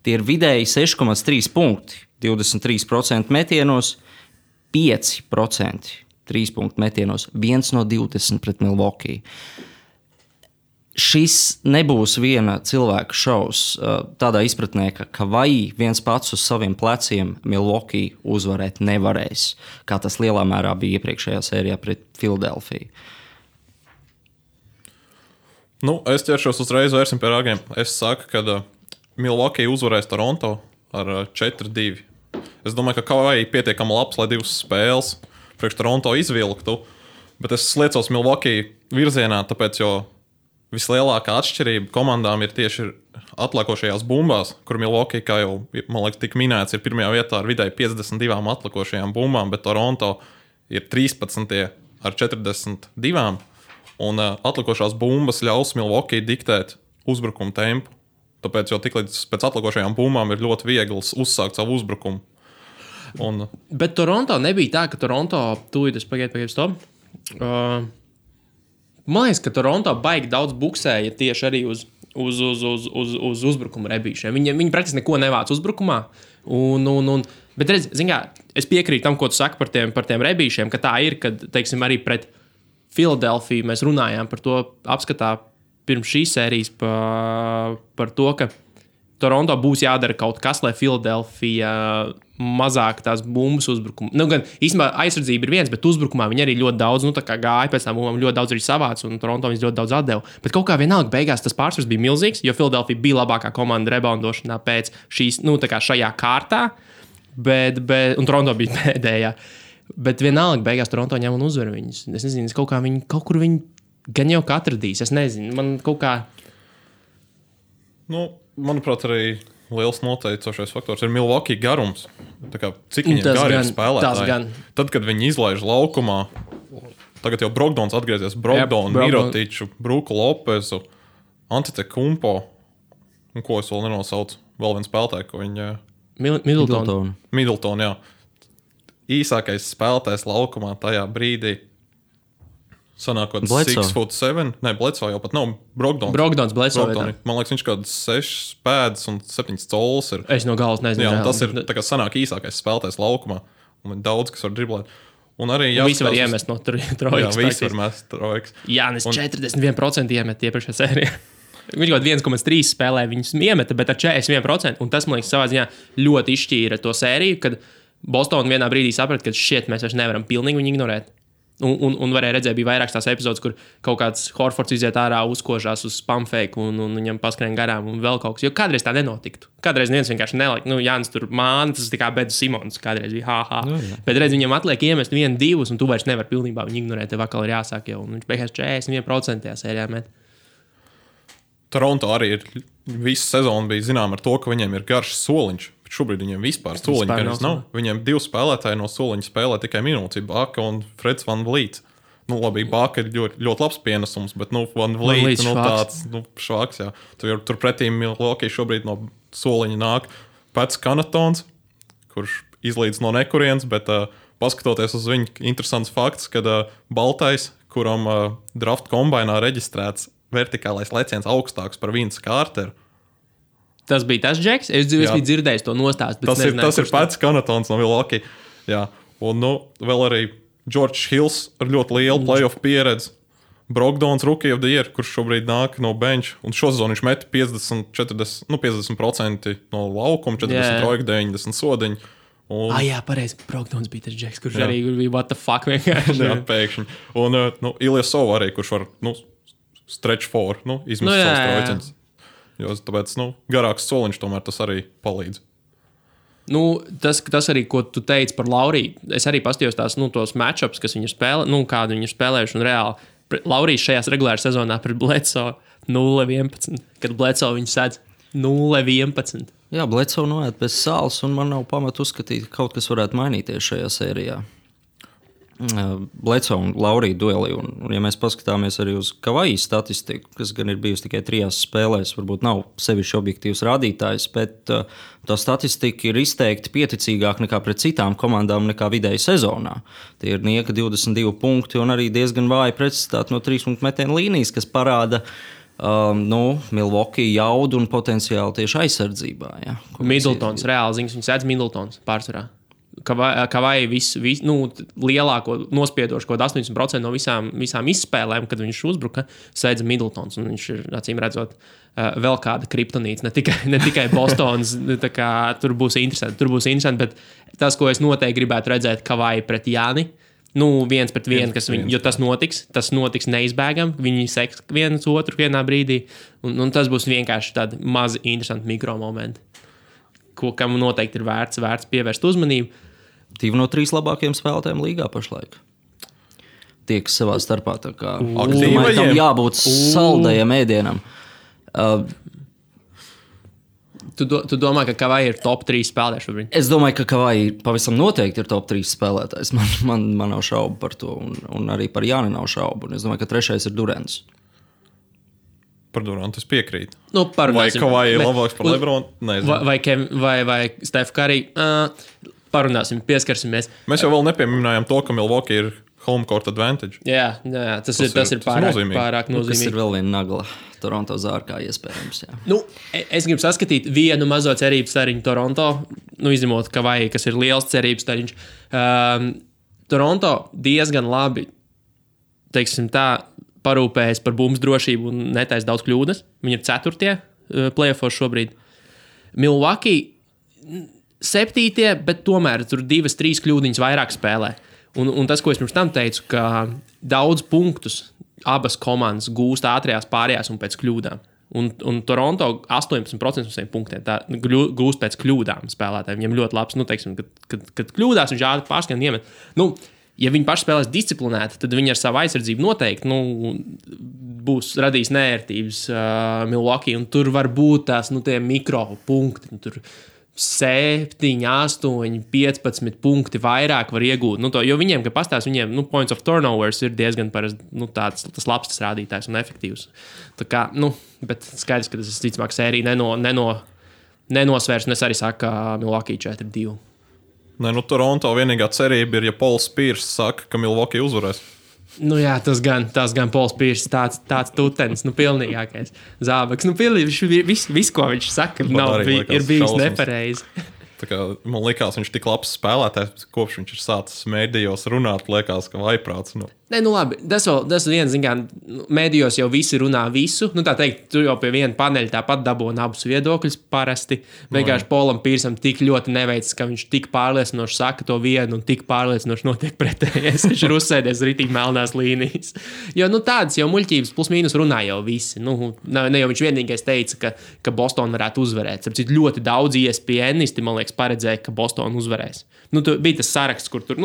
Speaker 2: tie ir vidēji 6,3 punkti, 23% metienos, 5% 3 punktu metienos, 1 no 20 pret Milwaukee. Šis nebūs viena cilvēka šovs tādā izpratnē, ka vai viens pats uz saviem pleciem Milwaukee uzvarēt nevarēs, kā tas lielā mērā bija iepriekšējā sērijā pret Philadelphia.
Speaker 3: Es ķeršos uzreiz vērsim pie ragiem. Es saku, ka Milwaukee uzvarēs Toronto ar 4-2. Es domāju, ka Kawhi pietiekami labs, lai divas spēles priekš Toronto izvilktu, bet es liecos Milwaukee virzienā, tāpēc, jo vislielākā atšķirība komandām ir tieši atliekošajās bumbās, kur Milwaukee, kā jau, man liekas, tika minēts, ir pirmajā vietā ar vidēji 52 atliekošajām bumbām, bet Toronto ir 13 ar 42, un atliekošās bumbas ļaus Milwaukee diktēt uzbrukumu tempu. Tāpēc, jo tiklīdz pēc atliekošajām bumbām ir ļoti viegls uzsākt savu uzbrukumu.
Speaker 1: Bet Toronto nebija tā, ka Toronto tūlīt es pagaidu stop. Man liekas, ka Toronto baigi daudz buksēja tieši arī uz uzbrukuma rebīšiem. Viņi praktiski neko nevāc uzbrukumā. Bet redz, es piekrītu tam, ko tu saki par tiem rebīšiem, ka tā ir, kad, teiksim, arī pret Philadelphia mēs runājām par to apskatā pirms šīs sērijas par to, ka Toronto būs jādara kaut kas, lai Philadelphia mazāk tās bumbas uzbrukuma. Gan īstenībā aizsardzība ir viens, bet uzbrukumā viņi arī ļoti daudz gāja pēc tām bumbām, ļoti daudz arī savāc, un Toronto viņas ļoti daudz atdeva. Bet kaut kā vienalga beigās tas pārsvars bija milzīgs, jo Philadelphia bija labākā komanda reboundošanā pēc šīs, šajā kārtā, un Toronto bija pēdējā. Bet vienalga beigās Toronto ņem un uzvar viņus. Es nezinu, kaut kur viņi gan jau atradīs. Es nezinu, man kaut kā...
Speaker 3: Manuprāt, arī liels noteicošais faktors ir Milwaukee garums. Cik viņiem gari ir spēlētāji? Tad, kad viņi izlaiž laukumā, tagad jau Brogdons atgriezies, Mirotiču, Bruku Lopezu, Antetokounmpo, un ko es vēl nenosaucu, vēl viens spēlētāji, ko viņi... Middleton, jā. Īsākais spēlētājs laukumā tajā brīdī. Sanākot 6'7". Nē, Bledsoe jau pat nav. Brogdons,
Speaker 1: Bledsoe.
Speaker 3: Man liekas, viņš kaut 6 pēdas un 7 colis ir.
Speaker 1: Es no galas nezinu.
Speaker 3: Jā, tas ir tā kā sanāk īsākais spēlētājs laukumā. Un daudz, kas var driblēt. Un arī
Speaker 1: visi var iemest no trojkas.
Speaker 3: Jā, visi var mest trojkas.
Speaker 1: Jānis 41% iemet iepriekšējā sērijā. Viņš kaut 1,3 spēlē viņus iemeta, bet ar 41%. Un tas, man liekas, savā ziņā ļoti izšķīra to sēriju, kad Boston vienā brīdī saprata, ka mēs vairs nevaram pilnīgi viņu ignorēt. Un varēja redzēt, bija vairākas tās epizodes, kur kaut kāds Horfords iziet ārā, uzkožās uz spam fake un viņam paskrien garām un vēl kaut kas. Jo kādreiz tā nenotiktu. Kādreiz neviens vienkārši nelika. Jānis tur māna, tas tā kā Beds Simons kādreiz bija ha. Bet redz, viņam atliek iemest 1-2 un tu vairs nevar pilnībā viņu ignorēt. Tev atkal ir jāsāk jau. Un viņš beigās 41% tajā sērijā met.
Speaker 3: Toronto arī visu sezonu bija zinām ar to, ka viņiem ir garš soliņš. Bet šobrīd viņiem vispār soliņa garš nav. Viņiem 2 spēlētāji no soliņa spēlē tikai minūti. Baka un Freds Van Vliet. Nu, labi, Baka ir ļoti labs pienesums, bet Van Vliet tāds švaks. Jā. Turpretī Milwaukee šobrīd no soliņa nāk Pats Connaughtons, kurš izlīdz no nekurienes, bet paskatoties uz viņu, interesants fakts, kad baltais, kuram draft kombainā reģistrēts vertikālais leciens augstāks par Vince Carteru.
Speaker 1: Tas bija tas Džeks? Es biju dzirdējis to nostāstu.
Speaker 3: Tas ir Pats Connaughtons no Milwaukee. Jā. Un vēl arī George Hills ar ļoti lielu playoff pieredzi. Brogdons Rookie of the Year, kurš šobrīd nāk no bench. Un šo sezonu viņš met 50% no laukuma, 40 trojku, 90 sodiņu.
Speaker 1: Jā, pareizi. Brogdons bija tas Džeks, kurš arī bija what the fuck vienkārši.
Speaker 3: Jā, pēkšņi. Un Ilyasov arī, kurš var stretch four, izmest savus trojceņus. Jo tāpēc garāks soliņš tomēr tas arī palīdz.
Speaker 1: Tas arī, ko tu teici par Lauriju. Es arī paskatījos tos matchups, kas viņi ir spēlējuši, kādu viņi ir spēlējuši. Un reāli Laurijs šajās regulārās sezonā pret Bledsoe 0-11, kad Bledsoe viņu sēdz 0-11.
Speaker 2: Jā, Bledsoe noiet bez sāls, un man nav pamata uzskatīt, ka kaut kas varētu mainīties šajā sērijā. Bledsoe un Laurija dueli. Un, ja mēs paskatāmies arī uz Kavaja statistiku, kas gan ir bijusi tikai 3 spēlēs, varbūt nav sevišķi objektīvs rādītājs, bet tā statistika ir izteikti pieticīgāka nekā pret citām komandām nekā vidēji sezonā. Tie ir nieka 22 punkti un arī diezgan vāji precizitāti no 3-punktu metienu līnijas, kas parāda Milwaukee jaudu un potenciāli tieši aizsardzībā. Ja,
Speaker 1: Middletons, reāli ziņas, viņš sēdz Middletons pārsvarā. Kavai lielāko nospiedošu, kaut 80% no visām izspēlēm, kad viņš uzbruka, sēdza Middletons. Viņš ir, acīm redzot, vēl kāda kriptonīca, ne tikai Bostonas. Tur būs interesanti, bet tas, ko es noteikti gribētu redzēt Kavai pret Jāni, 1-1, jo tas notiks neizbēgami. Viņi seks viens otru vienā brīdī, un tas būs vienkārši tādi mazi interesanti mikromomenti, kam noteikti ir vērts pievērst uzmanību.
Speaker 2: 2 no 3 labākajiem spēlētājiem līgā pašlaik tieks savā starpā. Domāju, tam jābūt saldajam ēdienam.
Speaker 1: Tu domā, ka Kavai ir top 3 spēlētājs šobrīd?
Speaker 2: Es domāju, ka Kavai pavisam noteikti ir top 3 spēlētājs. Man nav šaubu par to, un arī par Jāni nav šaubu. Un es domāju, ka 3. ir Durants.
Speaker 3: Par Durantu es piekrītu.
Speaker 1: Vai
Speaker 3: Kavai ir labāks par Lebronu?
Speaker 1: Vai Steph Curry? Parunāsim, pieskarsimies.
Speaker 3: Mēs jau vēl nepieminējām to, ka Milwaukee ir home court advantage.
Speaker 1: Jā, tas ir pārāk nozīmīgi.
Speaker 2: Tas ir vēl viena nagla Toronto zārkā iespējams. Jā.
Speaker 1: Es gribu saskatīt vienu mazo cerību stariņu Toronto, izņemot Kavai, kas ir liels cerības stariņš. Toronto diezgan labi, teiksim tā, parūpējas par bumbu drošību un netaisa daudz kļūdas. Viņi ir 4. playoffos šobrīd. Milwaukee 7, bet tomēr tur 2-3 kļūdiņas vairāk spēlē. Un tas, ko es pirms tam teicu, ka daudz punktus abas komandas gūst ātrajās pārējās un pēc kļūdām. Un Toronto 18% no saviem punktiem gūst pēc kļūdām spēlētājiem. Viņam ļoti labs, teiksim, kad kļūdās, viņš ātri pārskan iemet. Ja viņi paši spēlēs disciplinēti, tad viņi ar savu aizsardzību noteikti būs radījis nērtības Milwaukee. Un tur var būt tās tie mikropunkti. Tur 7, 8, 15 punkti vairāk var iegūt. Jo viņiem, kad pastāst, viņiem points of turnovers ir diezgan parasti tas labs tas rādītājs un efektīvs. Tā kā, bet skaidrs, ka tas ticamāk sērija nenosvērs. Un es arī saku, ka Milwaukee 4-2.
Speaker 3: Toronto vienīgā cerība ir, ja Pauls Pierce saka, ka Milwaukee uzvarēs.
Speaker 1: Jā, tas gan Pauls Pierce, tāds tutenis, pilnīgākais zābaks. Viss, ko viņš saka, ir bijis nepareizi.
Speaker 3: Man liekas, viņš ir tik labs spēlētājs, kopš viņš ir sācis mēdījos runāt, liekas, ka vaiprāts.
Speaker 1: Labi, tas viens, mēdījos jau visi runā visu. Tā teikt, tu jau pie viena paneļa tāpat dabūni abus viedokļus parasti. Vienkārši Paulam Piercam tik ļoti neveicis, ka viņš tik pārliecinoši saka to vienu un tik pārliecinoši notiek pretējais. Viņš ir uzsēdies ritīgi melnās līnijas. Jo tādas jau muļķības plus mīnus runā jau visi. Ne jau viņš vienīgais teica, ka Boston varētu uzvarēt. Tāpēc ļoti daudz ESPNisti, man liekas, paredzēja, ka Bostona uzvarēs. Bija tas saraksts, kur tur,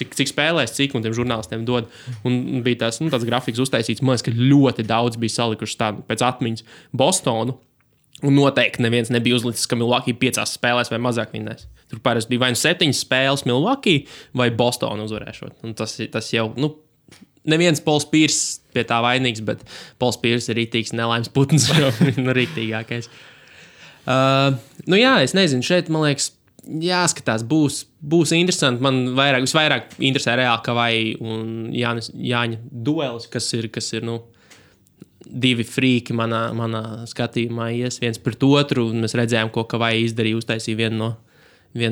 Speaker 1: cik spēlēs, cik un tiem žurnālistiem dod. Un bija tāds grafiks uztaisīts, man liekas, ka ļoti daudz bija salikuši tādu pēc atmiņas Bostonu. Un noteikti neviens nebija uzlicis, ka Milwaukee 5 spēlēs vai mazāk vinnēs. Tur parasti bija vai 7 spēles Milwaukee vai Bostonu uzvarēšot. Un tas jau, neviens Pols Pierce pie tā vainīgs, bet Pols Pierce ir rītīgs nelaimes putns, jau rītīgākais. Es nezinu, šeit, man liekas, jāskatās, būs interesanti. Man visvairāk interesē reāli Kavai un Jāņa duelis, kas ir divi frīki manā skatījumā ies viens pret otru, un mēs redzējām, ko Kavai izdarīja, uztaisīja vienu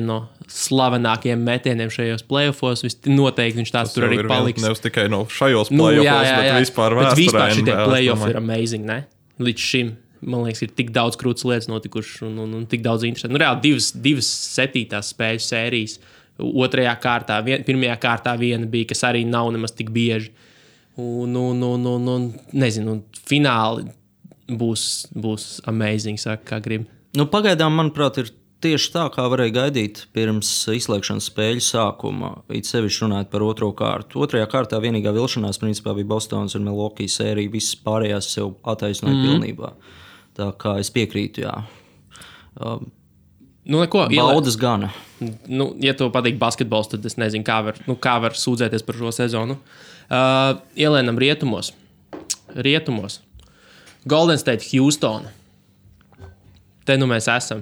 Speaker 1: no slavenākajiem metieniem šajos playoffos. Noteikti viņš tāds tur arī paliks.
Speaker 3: Nevis tikai no šajos playoffos, bet vispār vēsturē.
Speaker 1: Bet vispār šitie playoffi ir amazing, ne? Līdz šim, man liekas, ir tik daudz krūtas lietas notikušas un tik daudz interesanti. Reāli divas 7. spēļu sērijas. Otrajā kārtā, pirmajā kārtā viena bija, kas arī nav nemaz tik bieži. Nezinu, fināli būs amazing, saka, kā grib.
Speaker 2: Pagaidām, manuprāt, ir tieši tā, kā varēja gaidīt pirms izslēgšanas spēļu sākuma. It sevišķi runājot par otro kārtu. Otrajā kārtā vienīgā vilšanās principā bija Bostonas un Milwaukee sērija. Visas pārējās sev attaisnoja pilnībā. Tā kā es piekrītu, jā. Baudas gana.
Speaker 1: Ja tev patīk basketbols, tad es nezinu, kā var sūdzēties par šo sezonu. Ielēnam rietumos. Golden State, Houston. Te mēs esam.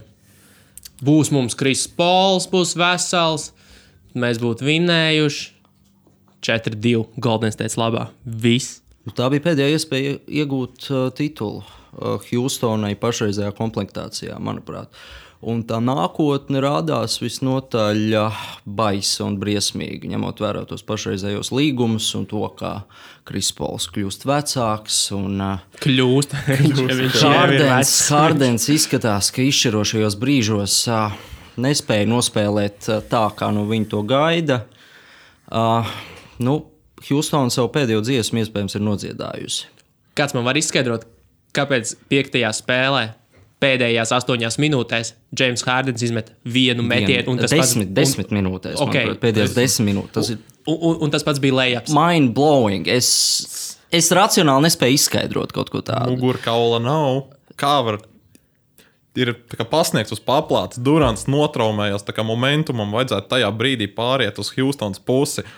Speaker 1: Būs mums Chris Pauls, būs vesels. Mēs būtu vinnējuši 4-2 Golden State labā. Viss.
Speaker 2: Tā bija pēdējā iespēja iegūt titulu Houstonai pašreizējā komplektācijā, manuprāt. Un tā nākotne rādās visnotaļ baisa un briesmīgi, ņemot vērā tos pašreizējos līgumus un to, kā Chris Pauls kļūst vecāks. Hardens izskatās, ka izšķirošajos brīžos nespēja nospēlēt tā, kā no viņa to gaida. Houston savu pēdējo dziesmu iespējams ir nodziedājusi.
Speaker 1: Kāds man var izskaidrot, kāpēc 5. spēlē pēdējās 8 minūtēs James Hardens izmet vienu metienu?
Speaker 2: 10 minūtēs. Okay. Pēdējās 10 minūtes.
Speaker 1: Un tas pats bija layups.
Speaker 2: Mind blowing. Es racionāli nespēju izskaidrot kaut ko tādu.
Speaker 3: Mugurkaula nav. Kā var ir pasniegts uz paplātes? Durants notraumējās, tā kā momentumam vajadzētu tajā brīdī pāriet uz Houstons pusi.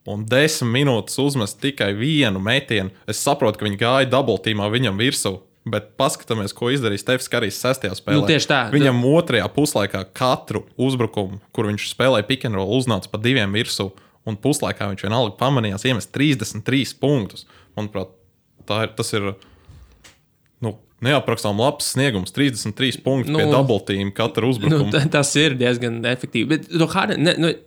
Speaker 3: Un 10 minūtes uzmest tikai vienu metienu. Es saprotu, ka viņi gāja double teamā viņam virsū. Bet paskatāmies, ko izdarīja Stefs Karijs 6. spēlē.
Speaker 1: Tieši tā.
Speaker 3: Viņam 2. puslaikā katru uzbrukumu, kur viņš spēlēja pick and roll, uznāca pa 2 virsū, un puslaikā viņš vienalga pamanījās iemest 33 punktus. Manuprāt, tas ir neaprakstām labs sniegums. 33 punkti pie double team katru uzbrukumu.
Speaker 1: Tas ir diezgan efektīvi. Bet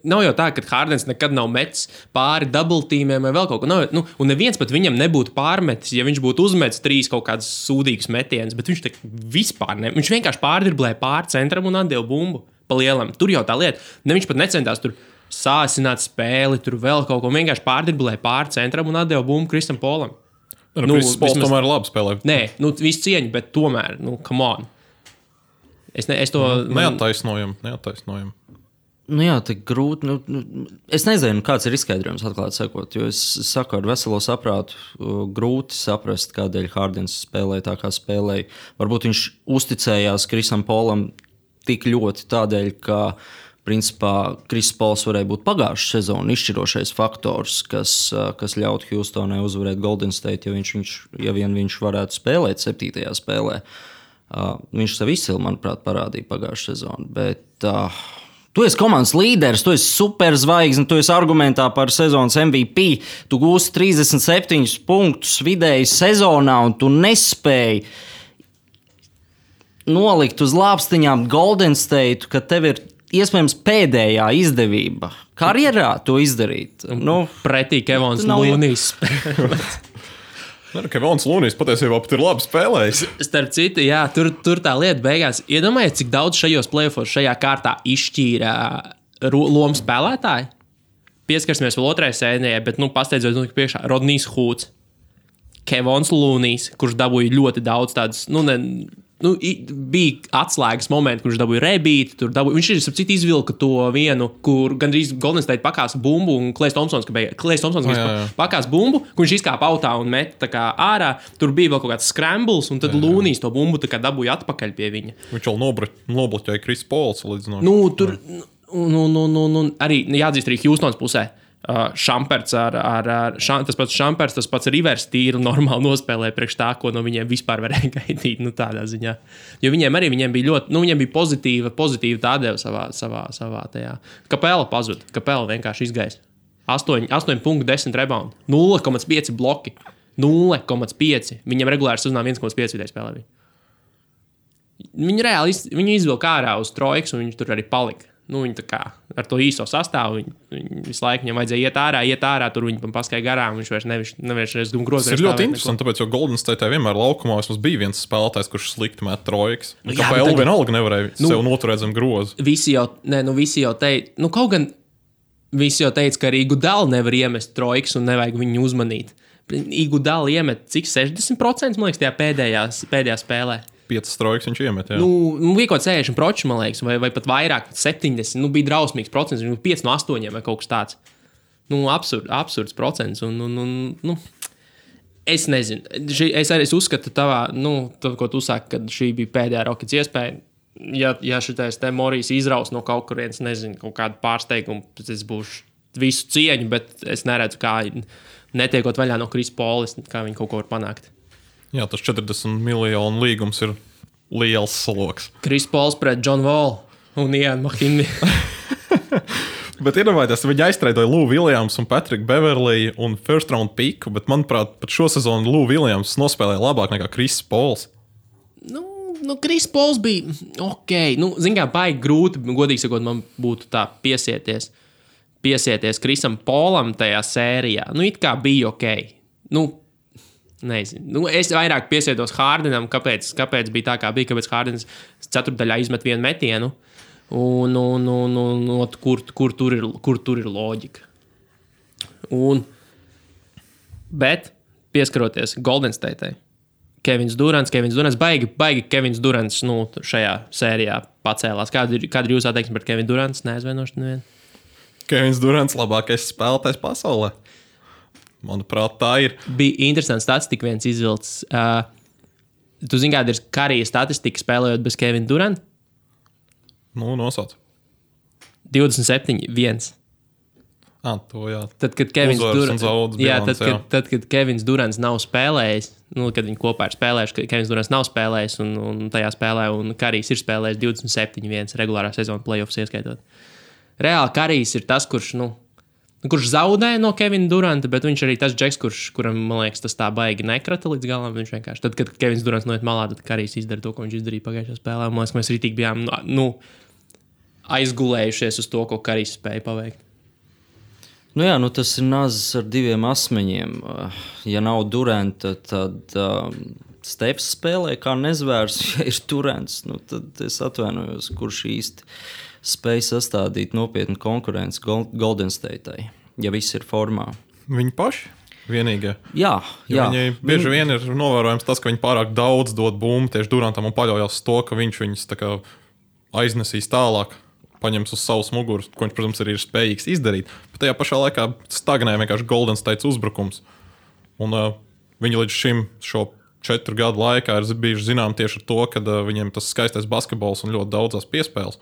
Speaker 1: nav jau tā, ka Hardens nekad nav metis pāri double teamiem vai vēl kaut ko. Un neviens pat viņam nebūtu pārmetis, ja viņš būtu uzmetis 3 kaut kādus sūdīgus metienus, bet viņš vispār ne. Viņš vienkārši pārdriblēja pāri centram un atdeva bumbu pa lielam. Tur jau tā lieta. Viņš pat necentās tur sāsināt spēli, tur vēl kaut ko. Vienkārši pārdriblēja pāri centram un atdeva bumbu Kristam Polam.
Speaker 3: Kristis Pols tomēr labi spēlē.
Speaker 1: Nē, visu cieņu, bet tomēr, come on. Es to...
Speaker 3: Neattaisnojam.
Speaker 2: Jā, tik grūti. Es nezinu, kāds ir izskaidrojums, atklāti sakot, jo es saku ar veselo saprātu, grūti saprast, kādēļ Hardens spēlēja tā, kā spēlēja. Varbūt viņš uzticējās Krisam Polam tik ļoti tādēļ, ka principā Chris Pauls varēja būt pagājušā sezona izšķirošais faktors, kas ļautu Houstonai uzvarēt Golden State, ja vien viņš varētu spēlēt 7. spēlē. Viņš sev izcili, manuprāt, parādīja pagājušā sezonu. Bet tu esi komandas līderis, tu esi superzvaigzne, tu esi argumentā par sezonas MVP, tu gūsi 37 punktus vidēji sezonā un tu nespēji nolikt uz lāpstiņām Golden State, ka tev ir iespējams pēdējā izdevība karjerā to izdarīt.
Speaker 1: Pretī Kevons Lūnijs.
Speaker 3: Kevons Lūnijs patiesībā pat ir labi spēlējis.
Speaker 1: Starp citu, jā, tur tā lieta beigās. Iedomājies, cik daudz šajos playoffos šajā kārtā izšķīra lomu spēlētāji. Pieskarsimies vēl otrajai sērijai, bet pasteidzot priekšā Rodnijs Hūds, Kevons Lūnijs, kurš dabūja ļoti daudz tādas, bija atslēgas momenti, kurš dabūja rebīti. Viņš ir citu izvilka to vienu, kur gandrīz Golden State pakās bumbu, un Klejs Tomsons pakās bumbu, kur viņš izkāpa autā un met tā kā ārā. Tur bija vēl kaut kāds scrambles, un tad Lūnijs to bumbu tā kā dabūja atpakaļ pie viņa.
Speaker 3: Viņš vēl nobloķēja Kris Pols līdz
Speaker 1: tur arī jāatzīst arī Hjūstons pusē. Šamperts tas pats Šamperts, tas pats Rivers tīri normāli nospēlēja priekš tā, ko no viņiem vispār varēja gaidīt, tādā ziņā. Jo viņiem bija ļoti, viņiem bija pozitīva tādēļ savā tajā. Kapela pazuda, Kapela vienkārši izgaisa. 8 punktu, 10 rebound, 0,5 bloki, 0,5. Viņiem regulāri sazināja 1,5 vidēji spēlē. Viņi izvilka ārā uz trojkas, un viņi tur arī palika. Viņi tā kā ar to īso sastāvu, viņi visu laiku viņam vajadzēja iet ārā, tur viņi paskaidroja garām, viņš vairs grozījās.
Speaker 3: Tas ir ļoti interesanti, tāpēc, jo Golden State vienmēr laukumā vismaz bija viens spēlētājs, kurš slikti met trojkas. Kāpēc vienalga nevarēja sev noturēt zem groza?
Speaker 1: Visi jau teica, kaut gan visi jau teica, ka arī Iguodala nevar iemest trojkas un nevajag viņu uzmanīt. Iguodala iemet cik 60%, man liekas, tajā pēdējā spēlē.
Speaker 3: 5 trojkas viņš iemet, jā.
Speaker 1: Bija kaut 60%, man liekas, vai pat vairāk, 70. Bija drausmīgs procents, 5 no 8 vai kaut kas tāds. Absurds procents. Es nezinu. Es arī uzskatu tavā, ko tu saki, kad šī bija pēdējā Rockets iespēja. Ja šitais te Morijs izraus no kaut kurienes, nezinu, kaut kādu pārsteigumu, tad es būšu visu cieņu, bet es neredzu, kā netiekot vaļā no Kris Polis, kā viņi kaut ko var panākt.
Speaker 3: Jā, tas 40 miljonu līgums ir liels sloks.
Speaker 1: Kris Pols pret John Wall un Ian Mahinmi.
Speaker 3: Bet iedomājieties, viņi aiztreidoja Lou Williams un Patrick Beverley un first round piku, bet manuprāt, pat šo sezonu Lou Williams nospēlēja labāk nekā Kris Pols.
Speaker 1: Kris Pols bija ok. Zin kā, baigi grūti, godīgi sakot, man būtu tā piesieties Krisam Polam tajā sērijā. It kā bija ok. Nezinu. Es vairāk piesietos Hardenam, kāpēc bija tā, kā bija, kāpēc Hardens ceturtdaļā izmet vienu metienu, un kur tur ir loģika. Bet pieskaroties Golden State'ai, Kevins Durants, baigi Kevins Durants šajā sērijā pacēlās. Kāda ir jūsu attieksme pret Kevinu Durants? Neaizvainošu nevienu.
Speaker 3: Kevins Durants labākais spēlētājs pasaulē. Manuprāt, tā ir.
Speaker 1: Bija interesants statistika viens izvilcis. Tu zini, kāda ir Karija statistika spēlējot bez Kevina Duranta?
Speaker 3: Nosauc.
Speaker 1: 27-1.
Speaker 3: To jā.
Speaker 1: Tad, kad Kevins Durants nav spēlējis, kad viņi kopā ir spēlējuši, Kevins Durants nav spēlējis un tajā spēlē, un Karijs ir spēlējis 27-1 regulārā sezona playoffs ieskaitot. Reāli Karijs ir tas, kurš zaudēja no Kevina Duranta, bet viņš arī tas džeks, kuram, man liekas, tas tā baigi nekrata līdz galam. Viņš vienkārši, tad, kad Kevins Durants noiet malā, tad Karijs izdara to, ko viņš izdarīja pagājušajā spēlē. Man liekas, mēs rītīgi bijām aizgulējušies uz to, ko Karijs spēja paveikt.
Speaker 2: Tas ir nazis ar diviem asmeņiem. Ja nav Duranta, tad Stefs spēlē kā nezvērs. Ja ir Durants, tad es atvainojos, kurš īsti spēj sastādīt nopietnu konkurenci Golden State'ai, ja viss ir formā.
Speaker 3: Viņi paši vienīgie.
Speaker 2: Jā.
Speaker 3: Viņai bieži vien ir novērojams tas, ka viņi pārāk daudz dod bumbu tieši Durantam un paļaujas to, ka viņš viņus tā kā aiznesīs tālāk, paņems uz savas muguras, ko viņš, protams, arī ir spējīgs izdarīt. Bet tajā pašā laikā stagnē vienkārši Golden State's uzbrukums. Un viņi līdz šim šo 4 gadu laikā ir bijuši zinām tieši ar to, ka viņiem tas skaistais basketbols un ļoti daudzās piespēles.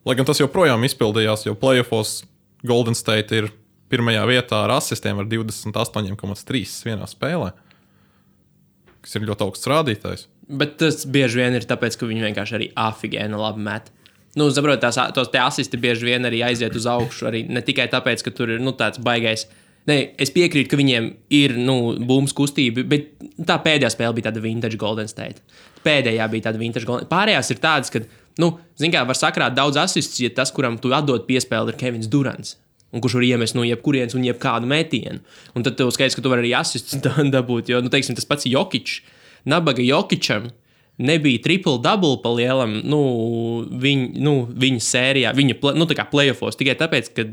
Speaker 3: Lai gan tas joprojām izpildījās, jo playoffos Golden State ir pirmajā vietā ar asistiem ar 28,3 vienā spēlē, kas ir ļoti augsts rādītājs.
Speaker 1: Bet tas bieži vien ir tāpēc, ka viņi vienkārši arī afigēna labi met. Saprot, tos te asisti bieži vien arī aiziet uz augšu, arī ne tikai tāpēc, ka tur ir tāds baigais. Es piekrītu, ka viņiem ir bumbas kustība, bet tā pēdējā spēle bija tāda vintage Golden State. Pārējās ir tādas, ka var sakrāt daudz asistus, ja tas, kuram tu atdod piespēli, ir Kevins Durants, un kurš var iemest no jebkurienes un jebkādu metienu. Un tad tev skaidrs, ka tu vari arī asistus dabūt, jo, teiksim, tas pats Jokic, nabaga Jokičam nebija triple-double pa lielam, viņa sērijā, tā kā playoffos, tikai tāpēc, ka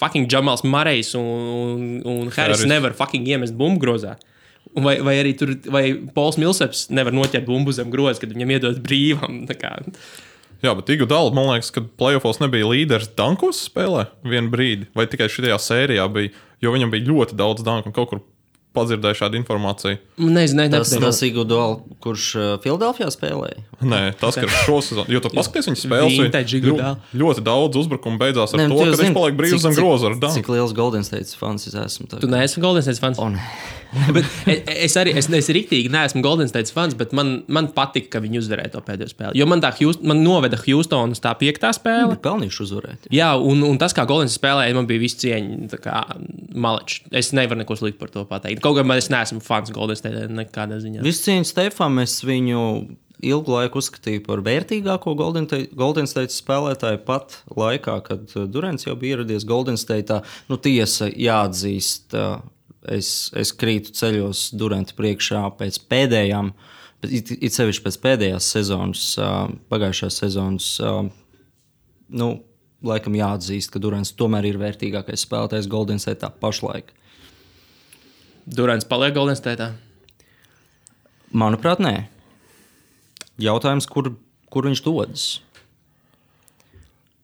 Speaker 1: fucking Jamals Murrejs un Harris nevar fucking iemest bumbu grozā. Vai arī tur, vai Pols Milseps nevar noķert bumbu zem groza, kad viņam iedod brīvam.
Speaker 3: Jā, bet Iguodala, man liekas, ka playoffos nebija līderis dankos spēlē vienu brīdi, vai tikai šajā sērijā bija, jo viņam bija ļoti daudz danku un kaut kur padzirdēju šādu informāciju.
Speaker 1: Nezinu,
Speaker 2: tas Iguodala, kurš Filadelfijā spēlēja?
Speaker 3: Nē, tas, ka šo sezonu, jo tu paskaties viņa spēles, ļoti daudz uzbrukumu beidzās ar to, ka viņš paliek brīvs zem groza ar danku.
Speaker 2: Cik liels Golden State fans es esmu?
Speaker 1: Tu neesi Golden State fans? Bet es riktīgi neesmu Golden State fans, bet man patika, ka viņi uzvarēja to pēdējo spēli. Jo man noveda Houston uz tā 5. spēle.
Speaker 2: Viņi pelnījuši uzvarēt.
Speaker 1: Jā, un tas, kā Golden State spēlēja, man bija viss cieņa, maleči. Es nevaru neko sliktu par to pateikt. Kaut gan es neesmu fans Golden State nekādā ziņā.
Speaker 2: Visu cieņu Stefam, es viņu ilgu laiku uzskatīju par vērtīgāko Golden State spēlētāju pat laikā, kad Durants jau bija ieradies Golden State'ā. Nu, tiesa jāatzīst, es krītu ceļos Duranta priekšā pēc pēdējām, it sevišķi pēc pēdējās sezonas, pagājušās sezonas, laikam jāatzīst, ka Durants tomēr ir vērtīgākais spēlētājs Golden State'ā pašlaik.
Speaker 1: Durants paliek Golden State'ā?
Speaker 2: Manuprāt, nē. Jautājums, kur viņš dodas?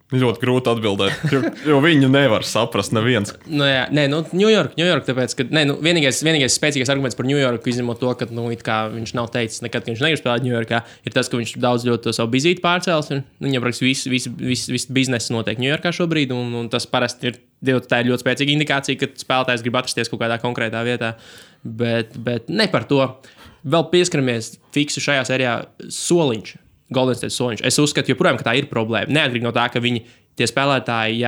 Speaker 3: Ļoti grūti atbildēt, jo viņu nevar saprast neviens.
Speaker 1: New York, tāpēc, ka vienīgais spēcīgais arguments par New Yorku, izņemot to, ka viņš nav teicis nekad, ka viņš negrib spēlēt New Yorkā, ir tas, ka viņš daudz ļoti to savu bizīti pārcēlis. Viņam praktiski viss biznesa notiek New Yorkā šobrīd, un tas parasti ir ļoti spēcīga indikācija, ka spēlētājs grib atrasties kaut kādā konkrētā vietā. Bet ne par to. Vēl pieskaramies fiksu šajā sērijā soliņš. Golden State soliņš. Es uzskatu, joprojām, ka tā ir problēma. Neatkarīgi no tā, ka tie spēlētāji,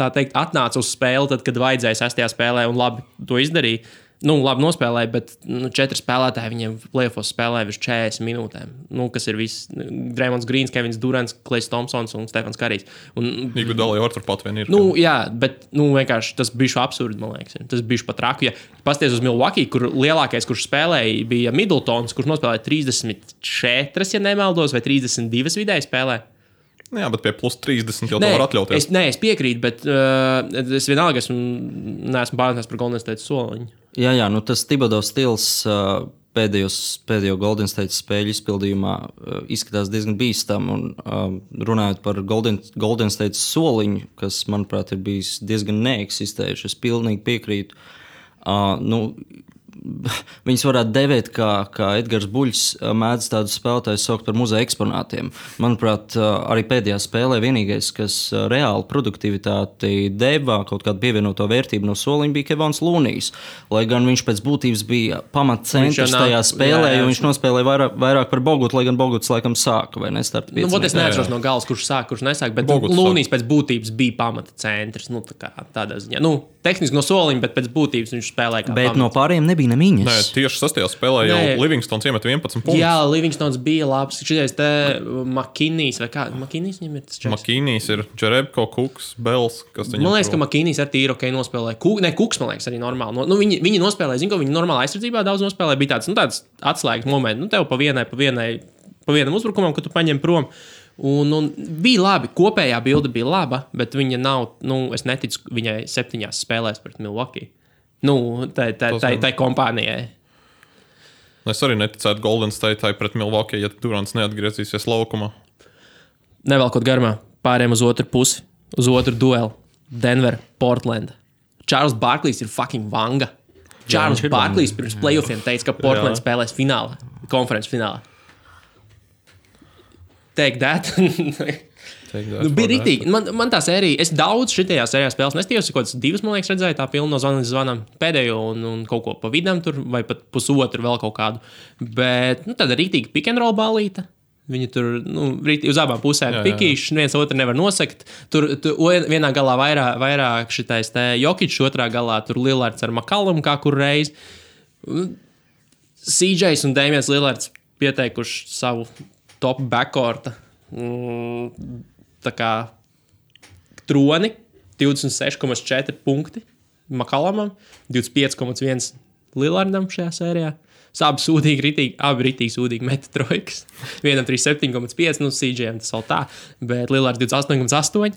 Speaker 1: tā teikt, atnāca uz spēli, tad, kad vajadzēja 6. spēlē un labi to izdarīja. Labi nospēlēja, bet 4 spēlētāji viņiem playoffos spēlēja virs 40 minūtēm. Kas ir viss? Draymonds Greens, Kevins Durants, Klejs Thompsons un Stefans Karijs.
Speaker 3: Iguodala jau turpat vien ir.
Speaker 1: Jā, bet vienkārši tas bija absurdi, man liekas. Tas bija pat traku. Ja pasties uz Milwaukee, kur lielākais, kurš spēlēja, bija Middletons, kurš nospēlēja 34, ja nemaldos, vai 32 vidēji spēlē.
Speaker 3: Jā, bet pie plus 30 jau to var atļauties.
Speaker 1: Es piekrītu, bet es vienalga neesmu pārliecināts par Golden State soliņu.
Speaker 2: Jā, tas Thibodeau stils pēdējo Golden State spēļu izpildījumā izskatās diezgan bīstam. Un, runājot par Golden State soliņu, kas, manuprāt, ir bijis diezgan neeksistējuši, es pilnīgi piekrītu. Viņus varētu devēt, kā Edgars Buļs mēdz tādus spēlētājus saukt par muzeja eksponātiem. Manuprāt, arī pēdējā spēlē vienīgais, kas reāli produktivitāti deva kaut kādu pievienoto vērtību no soliņa, bija Kevons Lūnijs. Lai gan viņš pēc būtības bija pamatcentrs tajā spēlē, jo viņš nospēlēja vairāk par Bogutu, lai gan Boguts laikam sāka vai nestarta 5.
Speaker 1: Es neatceros no galas, kurš sāk, kurš nesāk, bet Lūnijs pēc būtības bija pamatcentrs. Tādā ziņā. Tehniski no soliņa, bet pēc būtības viņš spēlēja kā
Speaker 2: bet no pārējiem nebija nemiņas.
Speaker 3: Nē, tieši 6. spēlē jau Livingstons iemet 11 punktus.
Speaker 1: Jā, Livingstons bija labs. Šitais te McKinney's vai kā? McKinney's viņam ir tas čeks?
Speaker 3: McKinney's ir Jerebko, Cooks, Bells.
Speaker 1: Man liekas, ka McKinney's ar tīri ok nospēlēja. Cooks, man liekas, arī normāli. Viņi nospēlēja, zinu, ka viņi normāli aizsardzībā daudz nospēlēja. Bija tāds atslēgas moments. Tev pa vienam uzbrukumam, kad tu paņem prom. Un bija labi, kopējā bilde bija laba, bet viņa nav, es neticu viņai 7 spēlēs pret Milwaukee. Tai kompānijai.
Speaker 3: Es arī neticētu Golden State pret Milwaukee, ja Durants neatgriezīsies laukumā.
Speaker 1: Nevelkot garumā, pārējiem uz otru pusi, uz otru duelu. Denver, Portland. Charles Barklejs ir fucking vanga. Charles Barklejs pirms playoffiem teica, ka Portland spēlēs finālā, konferences finālā. Take that. Bija rītīgi. Man tā sērija, es daudz šitajā sērijā spēles nestījos, kaut kāds 2, man liekas, redzēju, tā pilna no zvanas zvanām pēdējo un kaut ko pa vidam tur, vai pat pusotru vēl kaut kādu. Bet, tāda rītīga pick and roll balīta. Viņi tur, uz abām pusēm pikīši, viens otru nevar nosakt. Tur vienā galā vairāk šitais te Jokičs, otrā galā tur Lillards ar McCallum kā kur reiz. CJs un Damians Lillards pieteikuši savu top backcourta tā kā troni, 26,4 punkti McCallumam, 25,1 Lillardam šajā sērijā. Abi ritīgi sūdīgi meta trojkas. Vienam 37,5, CJam tas vēl tā, bet Lillards 28,8.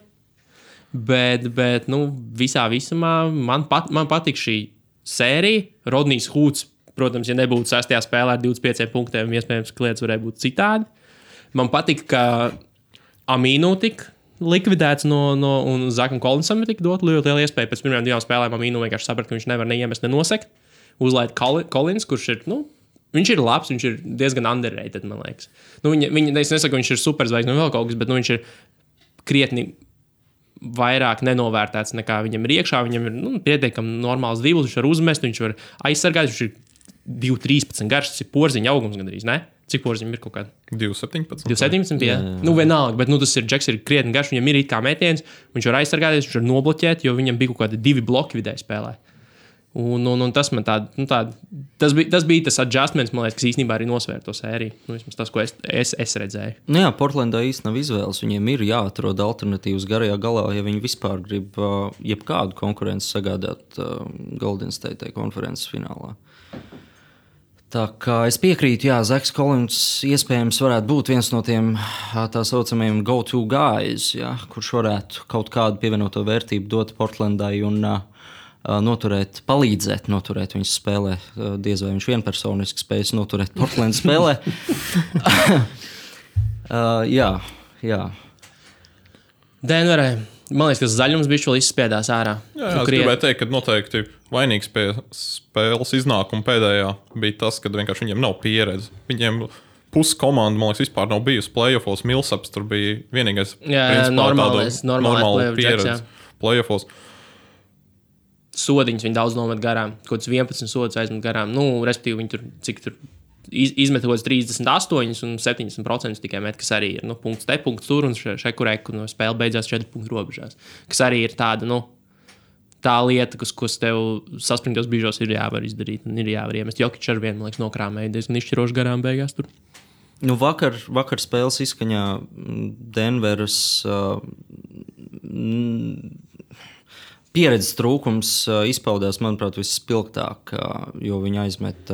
Speaker 1: Bet visā visumā man patīk šī sērija. Rodnijs Hūts, protams, ja nebūtu 6. spēlē ar 25 punktiem, iespējams, ka lietas varēja būt citādi. Man patīk, ka Amīnu tika likvidēts un Zakam Kolinsam tika dot ļoti liela iespēja. Pēc pirmajām 2 spēlēm Amīnu vienkārši saprata, ka viņš nevar neiemest, nenosekt. Uzlaid Kolins, kurš ir, viņš ir labs, viņš ir diezgan underrated, man liekas. Es nesaku, ka viņš ir superzvaigznes un vēl kaut kas, bet viņš ir krietni vairāk nenovērtēts nekā viņam ir iekšā. Viņam ir pietiekami normāls driblis, viņš var uzmest, viņš var aizsargāt, viņš ir 2,13 garš, tas ir porziņa augums gandrīz, ne? Cik porziņam ir kaut kāda?
Speaker 3: 2,17.
Speaker 1: 2,17, jā. Vienalga, bet tas ir Džeks, ir krietni garš, viņam ir it kā metiens, viņš var aizsargāties, viņš var nobloķēt, jo viņam bija kaut kādi 2 bloki vidēji spēlē. Un tas man tas bija tas adjustments, man liekas, kas īstenībā arī nosvēra to sēriju. Vismaz tas, ko es redzēju.
Speaker 2: Jā, Portlandā īsti nav izvēles. Viņiem ir jāatrod alternatīvas garajā galā, ja viņi vispār grib jebkādu konkurenci sagādāt Golden State konferences finālā. Tā kā es piekrītu, jā, Zaks Kolins iespējams varētu būt viens no tiem tā saucamajiem go-to guys, jā, kurš varētu kaut kādu pievienoto vērtību dot Portlandai un palīdzēt noturēt viņas spēlē. Diez vai viņš vienpersoniski spējas noturēt Portlandas spēlē. Jā.
Speaker 1: Denverē. Man liekas, ka zaļums bija vēl izspiedās ārā.
Speaker 3: Jā, es gribēju teikt, ka noteikti vainīgs pie spēles iznākuma pēdējā bija tas, ka vienkārši viņiem nav pieredze. Viņiem pusi komanda, man liekas, vispār nav bijusi playoffos. Millsaps tur bija vienīgais normāli pieredze playoffos.
Speaker 1: Sodiņus viņi daudz nomet garām. Kaut kāds 11 sodus aizmet garām. Respektīvi, viņi tur izmetot 38 un 70% tikai met, kas arī ir punkts te, punkts tur un šekurek, un spēle beidzās 4 punktu robežās. Kas arī ir tāda, tā lieta, kas tev saspringtos brīžos ir jāvar izdarīt un ir jāvar iemest. Jokič ar vienu, man liekas, nokrāmēja diezgan izšķiroši garām beigās tur.
Speaker 2: Vakar spēles izskaņā Denveras pieredzes trūkums izpaudās, manuprāt, visspilgtāk, jo viņi aizmet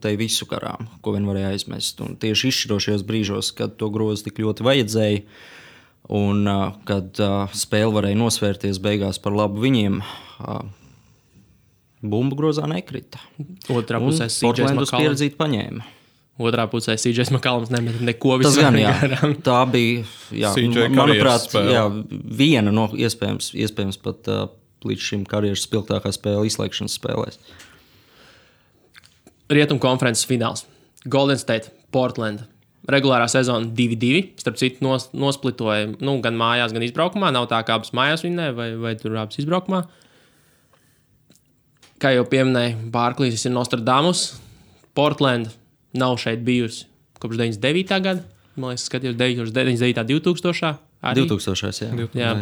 Speaker 2: te visu garām, ko vien varēja aizmest. Un tieši izšķirošajos brīžos, kad to grozu tik ļoti vajadzēja un kad spēle varēja nosvērties beigās par labu viņiem, bumbu grozā nekrita.
Speaker 1: Otrā pusē
Speaker 2: Portlandas pieredzīt paņēma.
Speaker 1: Otrā pusē CJ McCollums nemet neko visu.
Speaker 2: Tas gan, jā. Tā bija, manuprāt, viena no iespējams pat līdz šim karjeras spilgtākā spēle izslēgšanas spēlēs.
Speaker 1: Rietumu konferences fināls. Golden State, Portland. Regulārā sezona 2-2. Starp citu nosplitoja gan mājās, gan izbraukumā. Nav tā, kā abas mājās vinnē, vai tur abas izbraukumā. Kā jau pieminēja, Barklīs ir Nostradamus. Portland nav šeit bijusi kopš 99. gada. Man liekas, skatījos 99. 2000. Arī.
Speaker 2: 2000. Jā.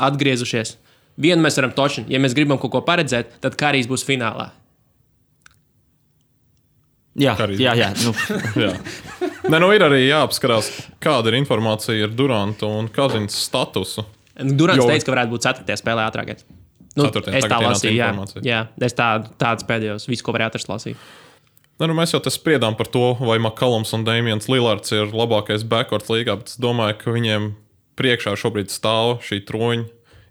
Speaker 1: Atgriezušies. Vienu mēs varam točināt. Ja mēs gribam kaut ko paredzēt, tad Karijs būs finālā.
Speaker 2: Jā.
Speaker 3: Jā. Ir arī jāapskarās, kāda ir informācija ar Durantu un Kazins statusu.
Speaker 1: Durants teica, ka varētu būt 4. spēlē ātrākais. Es tā lasīju, jā. Es tāds pēdējos, visu, ko varēju atrast, lasīju.
Speaker 3: Mēs jau te spriedām par to, vai McCollums un Damians Lillards ir labākais backcourt līgā, bet es domāju, ka viņiem priekšā šobrīd stāv šī troņa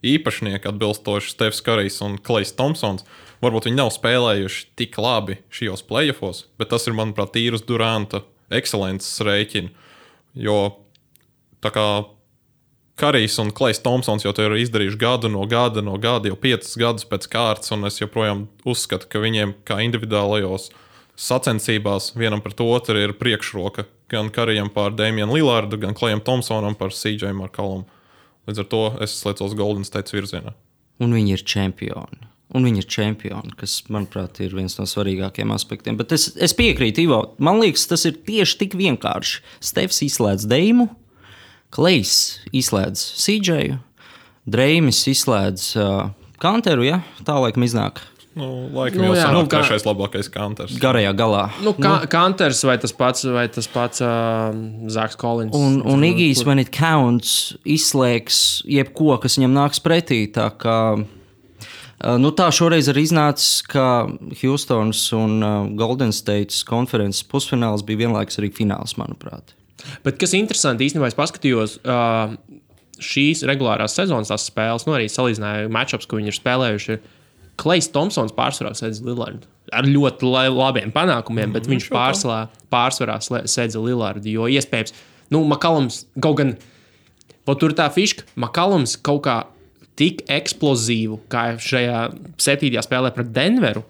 Speaker 3: īpašnieki atbilstoši Stefs Karijs un Klejs Thompsons. Varbūt viņi nav spēlējuši tik labi šajos playoffos, bet tas ir, manuprāt, tīrus Duranta ekscelences rēķina. Jo tā kā Karijs un Klejs Thompsons jau to ir izdarījuši gadu no gada, jau 5 gadus pēc kārtas, un es joprojām uzskatu, ka viņiem kā individuālajos sacensībās vienam pret otru ir priekšroka. Gan Karijam pār Damianu Lillardu, gan Klejam Thompsonam par CJ McCollum. Līdz ar to es sliecos Golden State virzienā.
Speaker 2: Un viņi ir čempioni. Kas, manuprāt, ir viens no svarīgākajiem aspektiem. Bet es piekrītu, Ivo. Man liekas, tas ir tieši tik vienkārši. Stefs izslēdz Deimu, Klejs izslēdz CJ, Dreimis izslēdz Kanteru, ja? Tā laikam iznāk.
Speaker 3: Laikam jau sanāk trešais labākais Kanters.
Speaker 2: Garajā galā.
Speaker 1: Kanters vai tas pats Zaks Kolins.
Speaker 2: Un Igijs, when it counts, izslēgs jebko, kas viņam nāks pretī. Tā kā tā šoreiz arī iznācis, ka Houstons un Golden States konferences pusfināls bija vienlaikus arī fināls, manuprāt.
Speaker 1: Bet kas interesanti, īstenībā es paskatījos šīs regulārās sezonas tās spēles, arī salīdzināju matchups, ko viņi ir spēlējuši. Klejs Thompsons pārsvarā sedz Lillardu. Ar ļoti labiem panākumiem, bet viņš pārsvarā sedz Lillardu. Jo iespējams, Makallums kaut gan, tur tā fiška, Makallums kaut kā tik eksplozīvu, kā šajā 7. spēlē pret Denveru,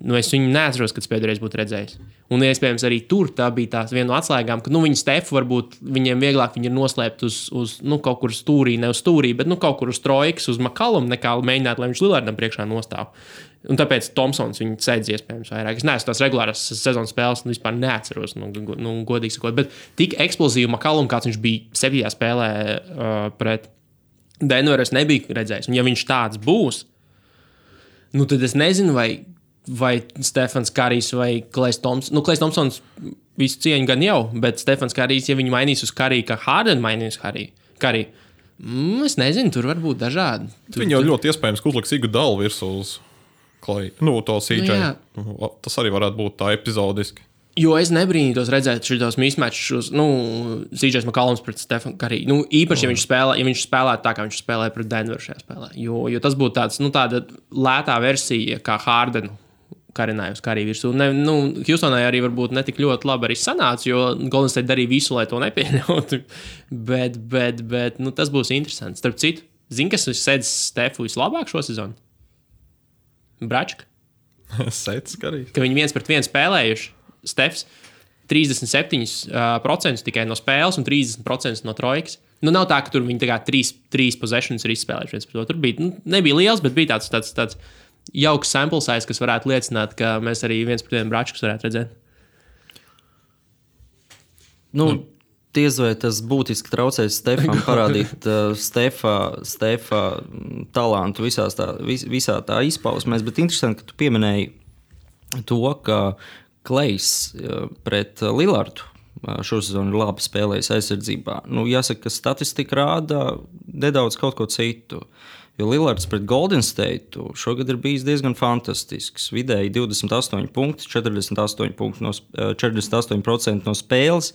Speaker 1: es viņu neatceros, kad pēdējais būtu redzējis. Un iespējams arī tur tā bija tās viena no atslēgām, ka viņi Stefu varbūt viņiem vieglāk viņi ir noslēpt uz kaut kur stūrī, ne uz stūrī, bet kaut kur uz trojkas, uz Makallumu, nekā mēģināt, lai viņš Lillardam priekšā nostāv. Un tāpēc Thompsons viņu sēdz iespējams vairāk. Es neesmu tās regulārās sezonas spēles, vispār neatceros, godīgi sakot. Bet tik eksplozīvu Makallumu, kāds viņš bija 7. spēlē pret Denveru, es nebiju redzējis. Un ja viņš tāds būs, tad es nezinu, vai Stefans Karijs vai Klejs Thompsons. Klejs Thompsons visu cieņu gan jau, bet Stefans Karijs, ja viņi mainīs uz Kariju, kā Harden mainīs Kariju, es nezinu, tur var būt dažādi.
Speaker 3: Viņi jau ļoti iespējams, ka uzliks Iguodala virsū uz Kleju. To CJ. Tas arī varētu būt tā epizodiski.
Speaker 1: Jo es nebrīnītos redzēt šitos mismatchus, CJ Makallums pret Stefanu Kariju. Īpaši, ja viņš spēlētu tā, kā viņš spēlēja pret Denveru šajā spēlē. Jo tas būtu tāda lētā versija, kā Hardenu karināja uz Kariju virsū. Houstonai arī varbūt netik ļoti labi arī sanāca, jo Golden State darīja visu, lai to nepieļautu. Bet tas būs interesants. Starp citu, kas sedz Stefu vislabāk šo sezonu? Bračka.
Speaker 3: Sedz Kariju.
Speaker 1: Ka viņi 1-1 spēlējuši. Stefs 37% tikai no spēles un 30% no trojkas. Nav tā, ka tur viņi trīs possessions ir izspēlējuši. Tur bija, nebija liels, bet bija tāds jauks sample size, kas varētu liecināt, ka mēs arī 1-1 Bračkus varētu redzēt.
Speaker 2: Diez vai tas būtiski traucēs Stefam parādīt Stefa talantu visā tā izpausmēs, bet interesanti, ka tu pieminēji to, ka Klejs pret Lillardu šo sezonu ir labi spēlējis aizsardzībā. Jāsaka, ka statistika rāda nedaudz kaut ko citu. Jo Lillards pret Golden State šogad ir bijis diezgan fantastisks. Vidēji 28 punkti, 48% no spēles,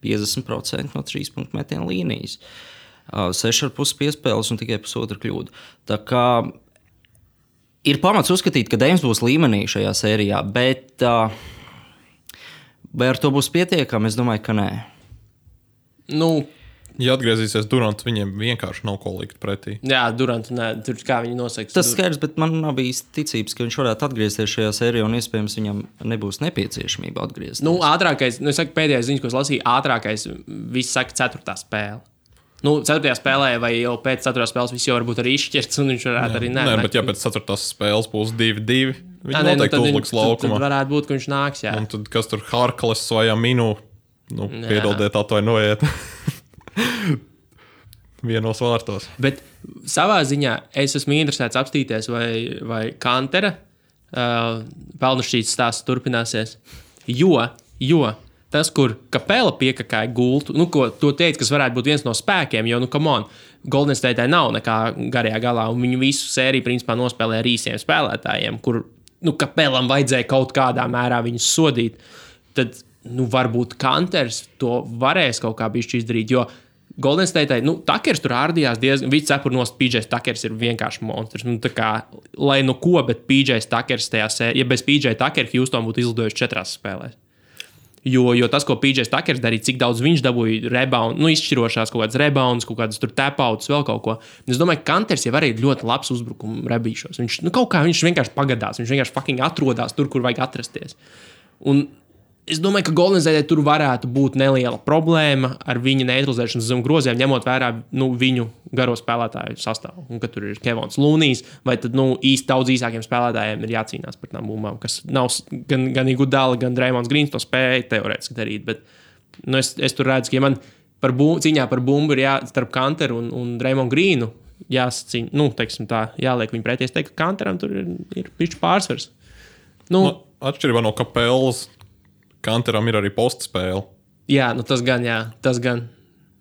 Speaker 2: 50% no 3 punktu metienu līnijas. 6,5 piespēles un tikai pusotra kļūda. Tā kā ir pamats uzskatīt, ka Deims būs līmenī šajā sērijā, bet vai ar to būs pietiekami? Es domāju, ka nē.
Speaker 3: Ja atgriezīsies Durants, viņiem vienkārši nav ko likt pretī.
Speaker 1: Jā, Durants, tur kā viņi nosaka.
Speaker 2: Tas skaidrs, bet man nav bijis ticības, ka viņš varētu atgriezties šajā sērijā, un iespējams viņam nebūs nepieciešamība atgriezties.
Speaker 1: Ātrākais, es saku pēdējais ziņas, ko es lasīju, ātrākais, viss saka 4. spēle. 4. spēlē vai jau pēc 4. spēles viss jau varbūt arī izšķirts, un viņš varētu arī
Speaker 3: Nē, bet ja pēc 4. spēles būs 2-2, viņi noteikti uzliks laukumā.
Speaker 1: Tad varētu būt, ka viņš nāks, jā.
Speaker 3: Un tad kas tur Harkles vai Aminu, piedodiet, atvainojiet. Vienos vārtos. Bet
Speaker 1: savā ziņā es esmu interesēts apstīties, vai Kantera pelnušķītas stāsts turpināsies. Jo tas, kur Kapela piekakāja gultu, ko to teica, kas varētu būt viens no spēkiem, jo, Golden State nav nekā garajā galā, un viņu visu sēriju principā nospēlē ar īsiem spēlētājiem, kur, Kapelam vajadzēja kaut kādā mērā viņus sodīt. Tad, varbūt Kanters to varēs kaut kā bišķi izdarīt, jo Golden State, Takers tur ārdījās diezgan, viss cepurnos, PJ Takers ir vienkārši monstrs. Lai ko, bet PJ Takers tajā sērijā, ja bez PJ Takera Houston būtu izlidojuši 4 spēlēs. Jo tas, ko PJ Takers darīja, cik daudz viņš dabūja rebound, izšķirošās kaut kādas rebounds, kaut kādas tur tap-outs, vēl kaut ko. Es domāju, ka Kanters jau arī ir ļoti labs uzbrukumu rebīšos. Viņš, kaut kā viņš vienkārši pagadās, viņš vienkārši fucking atrodās tur, kur vajag atrasties. Un es domāju, ka Golden State tur varētu būt neliela problēma ar viņa neutralizēšanas zem groziem, ņemot vērā viņu garo spēlētāju sastāvu. Un ka tur ir Kevons Lūnijs, vai tad īsti daudz īsākiem spēlētājiem ir jācīnās par tām bumbām, kas nav gan Iguodala, gan Draymond Greens to spēja teorētiski darīt. Bet es tur redzu, ka ja man cīņā par bumbu ir starp Kanteru un Draymond Greenu jāsacīna, teiksim tā, jāliek viņu pretī. Es teiktu, ka Kanteram tur ir pišķi pārsvars.
Speaker 3: Atšķirībā no Kapelas, Kanteram ir arī postspēle.
Speaker 1: Jā, tas gan.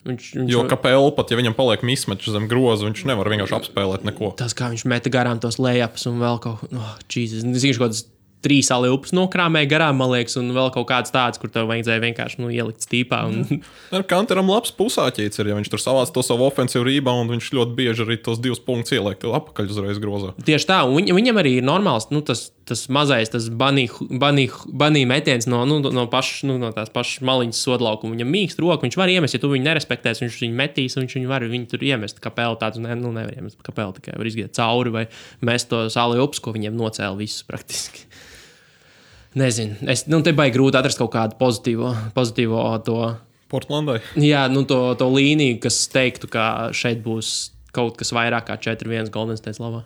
Speaker 3: Jo Kapela pat, ja viņam paliek mismatch zem groza, viņš nevar vienkārši apspēlēt neko.
Speaker 1: Tas, kā viņš meta garām tos layups un vēl kaut ko. Jesus. Es zinu, kādas 3 aliupus nokrāmēja garām, man liekas, un vēl kaut kāds tāds, kur tev vajadzēja vienkārši ielikt stīpā. Un...
Speaker 3: Ar Kanteram labs pusāķīts ir, ja viņš tur savāc to savu ofensīvu rībaundu, viņš ļoti bieži arī tos 2 punktus ieliek, tev apakaļ uzreiz grozā.
Speaker 1: Tieši tā, un viņam arī ir normāls, tas mazais, tas banī metiens no tās pašas maliņas sodlaukuma. Viņam mīkst roku, viņš var iemest, ja tu viņu nerespektēs, viņš viņu metīs, un viņš viņu var viņu tur iemest. Kapeli tāds, nevar iemest kapeli, tikai var izgiet cauri vai mest to aliupus, ko viņiem nocēla visus praktiski. Nezinu, te baigi grūti atrast kaut kādu pozitīvo to...
Speaker 3: Portlandai?
Speaker 1: Jā, to līniju, kas teiktu, ka šeit būs kaut kas vairāk kā 4-1 Golden State labā.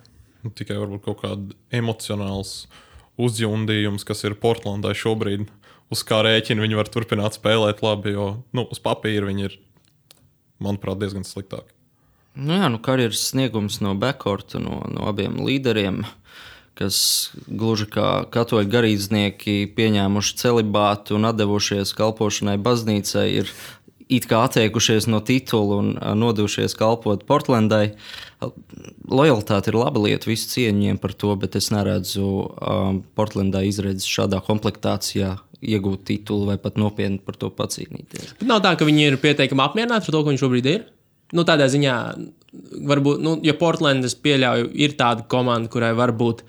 Speaker 3: Tikai varbūt kaut kāda emocionāls uzjundījums, kas ir Portlandai šobrīd, uz kā rēķina viņi var turpināt spēlēt labi, jo uz papīra viņi ir, manuprāt, diezgan sliktāki.
Speaker 2: Karjeras sniegums no backcourta, no abiem līderiem, kas gluži kā katoļu garīdznieki pieņēmuši celibātu un atdevušies kalpošanai baznīcai, ir it kā atteikušies no titula un nodevušies kalpot Portlandai. Lojalitāte ir laba lieta, visu cieņiem par to, bet es neredzu Portlandai izredzes šādā komplektācijā iegūt titulu vai pat nopietni par to pacīnīties.
Speaker 1: Bet nav tā, ka viņi ir pietiekami apmierināti ar to, ko viņš šobrīd ir? Tādā ziņā, varbūt, ja Portlandas pieļauju, ir tāda komanda, kurai varbūt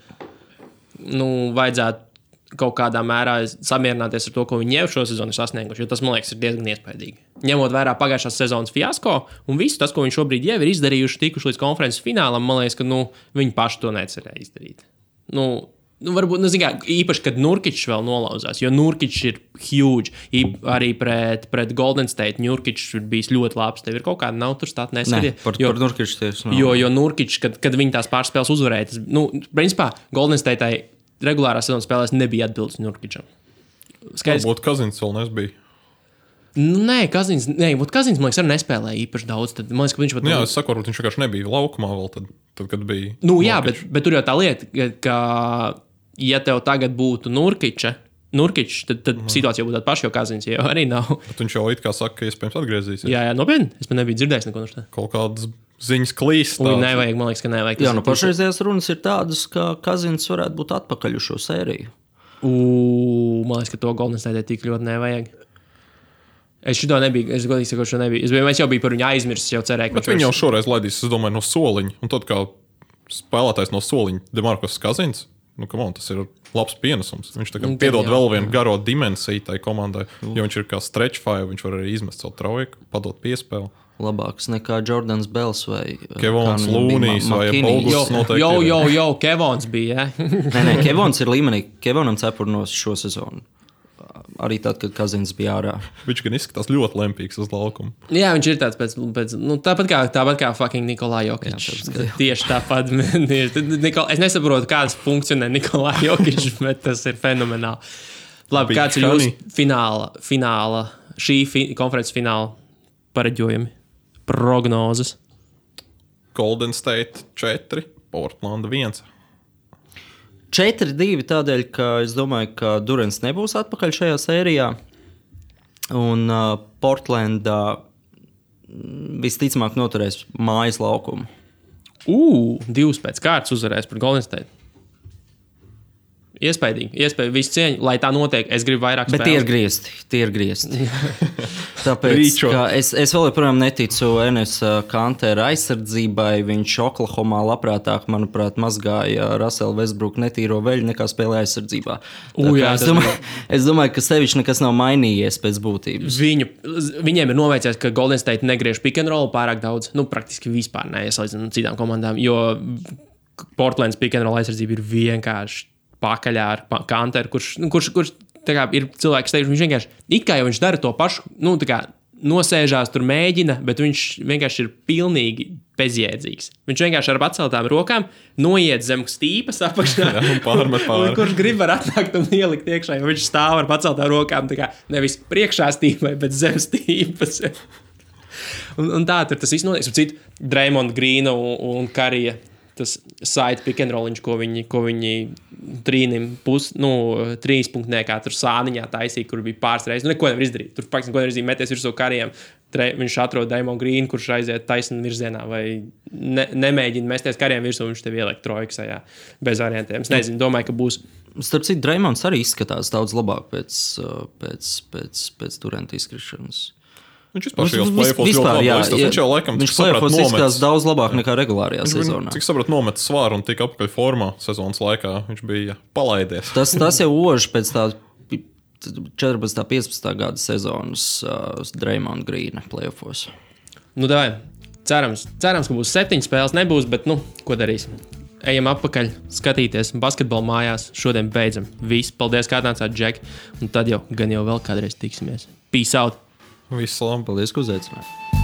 Speaker 1: vajadzētu kaut kādā mērā samierināties ar to, ko viņi jau šo sezonu ir sasnieguši, jo tas, man liekas, ir diezgan iespaidīgi. Ņemot vērā pagājušās sezonas fiasko un visu tas, ko viņi šobrīd jau ir izdarījuši, tikuši līdz konferences finālam, man liekas, ka viņi paši to necerēja izdarīt. Varbūt, īpaši, kad Nurkičs vēl nolauzās, jo Nurkičs ir huge. Arī pret Golden State Nurkičs ir bijis ļoti labs. Tev ir kaut kāda nav tur stāta neskatie.
Speaker 2: Par Nurkičs tieši nav.
Speaker 1: Jo Nurkičs, kad viņi tās pārspēles uzvarēja, principā Golden State'ai regulārā sezonas spēlēs nebija atbildes Nurkičam.
Speaker 3: Varbūt Kazins vēl nesbija.
Speaker 1: Kazins, man liekas, arī nespēlēja īpaši daudz. Tad, man liekas, ka viņš pat...
Speaker 3: Jā, es saku, varbūt viņš vienkārši nebija laukumā vēl tad kad bija...
Speaker 1: Jā, bet tur jau tā lieta, ka ja tev tagad būtu Nurkičs, tad situācija būtu tāda paša, jo Kazins jau arī nav.
Speaker 3: Bet viņš jau it kā saka, ka iespējams atgriezīsies.
Speaker 1: Jā, nopietni. Es pat nebiju dzirdējis neko no tā.
Speaker 3: Kaut kādas ziņas klīst.
Speaker 1: Nevajag, man liekas, ka nevajag.
Speaker 2: Jā, pašreizējās runas ir tādas, ka Kazins varētu būt atpakaļ uz šo sēriju.
Speaker 1: Man liekas, ka to Golden State tik ļoti nevajag. Es šito nebiju, es godīgi saku, šo nebiju. Es jau biju par viņu aizmirsis, jau cerēju,
Speaker 3: ka viņi jau šoreiz laidīs, es domāju, no soliņa. Un tad kā spēlētājs no soliņa Demarcus Kazins, tas ir labs pienesums. Viņš tagad piedod vēl vienu garo dimensiju tai komandai, jo viņš ir kā stretch five, viņš var arī izmest savu trojku, padot piespēli.
Speaker 2: Labāks nekā Jordans Bells vai
Speaker 3: Kevons Lūnijs vai Bogus
Speaker 1: noteikti. Kevons bija,
Speaker 2: Nē, Kevons ir līmenī. Kevonam cepurnos šo sezonu. Arī tad, kad Kazins bija ārā.
Speaker 3: Viņš gan izskatās ļoti lempīgs uz laukumu.
Speaker 1: Jā, viņš ir tāds pēc tāpat kā fucking Nikolai Jokičs. Tieši tāpat. Es nesaprotu, kāds funkcionē Nikolai Jokičs, bet tas ir fenomenāli. Labi, kāds ir jūsu fināla, konferences fināla pareģojumi, prognozes?
Speaker 3: Golden State 4, Portland 1.
Speaker 2: 4-2 tādēļ, ka es domāju, ka Durants nebūs atpakaļ šajā sērijā. Un Portlandā visticamāk noturēs mājas laukumu.
Speaker 1: 2 pēc kārtas uzvarēs par Golden State. Iespaidīgi, visu cieņu, lai tā notiek. Es gribu vairāk spēlēt.
Speaker 2: Bet tie ir griezti. Tāpēc, ka es vēl joprojām neticu Enes Kantera aizsardzībai. Viņš Oklahomā labprātāk, manuprāt, mazgāja Russell Westbrook netīro veļu nekā spēlē aizsardzībā. Es domāju, ka sevišķi nekas nav mainījies pēc būtības.
Speaker 1: Viņiem ir noveicies, ka Golden State negriež pick and roll pārāk daudz. Praktiski vispār neiesalīdzinot citām komandām, jo Portlands pick and roll aizsardzība ir vienkārši pakaļā ar Kanteru, kurš kā, ir cilvēks, teikšu, viņš vienkārši, it kā jau viņš dara to pašu, nosēžās, tur mēģina, bet viņš vienkārši ir pilnīgi bezjēdzīgs. Viņš vienkārši ar paceltām rokām noiet zem stīpas apakšā. Un kurš grib var atnākt un ielikt iekšā, jo viņš stāv ar paceltām rokām, nevis priekšā stīpai, bet zem stīpas. un tā tur tas viss notiek. Draymond Greena un Karija. tas site pick and rolliņš, ko viņi trīnim trīspunktnē, kā tur sāniņā taisīja, kur bija pāris reizes. Neko nevar izdarīt. Tur faktiski neko nevar izdarīt, meties virsū kariem. Viņš atrod Draymond Green, kurš aiziet taisnā virzienā, vai nemēģina mesties kariem virsū, viņš tev ieliek trojksajā bez variantiem. Es nezinu, domāju, ka būs.
Speaker 2: Starp citu, Draymonds arī izskatās daudz labāk pēc Duranta izkrišanas.
Speaker 3: Viņš vispār šajos play-offos ļoti labi izskatās. Viņš jau laikam
Speaker 2: izskatās daudz labāk nekā regulārajā sezonā.
Speaker 3: Cik saprat, nomet svāru un tika apakaļ formā sezonas laikā. Viņš bija palaidies.
Speaker 2: Tas jau oži pēc tā 14. 15. gada sezonas Draymond Greena play-offos.
Speaker 1: Davai. Cerams, ka būs 7 spēles. Nebūs, bet ko darīsim? Ejam atpakaļ, skatīties basketbolu mājās. Šodien beidzam. Viss. Paldies, kā atnācāt, Džek. Un tad jau vēl kādreiz tiksimies. Peace out!
Speaker 3: Visu labi.
Speaker 2: Paldies, ka uzaicinājāt.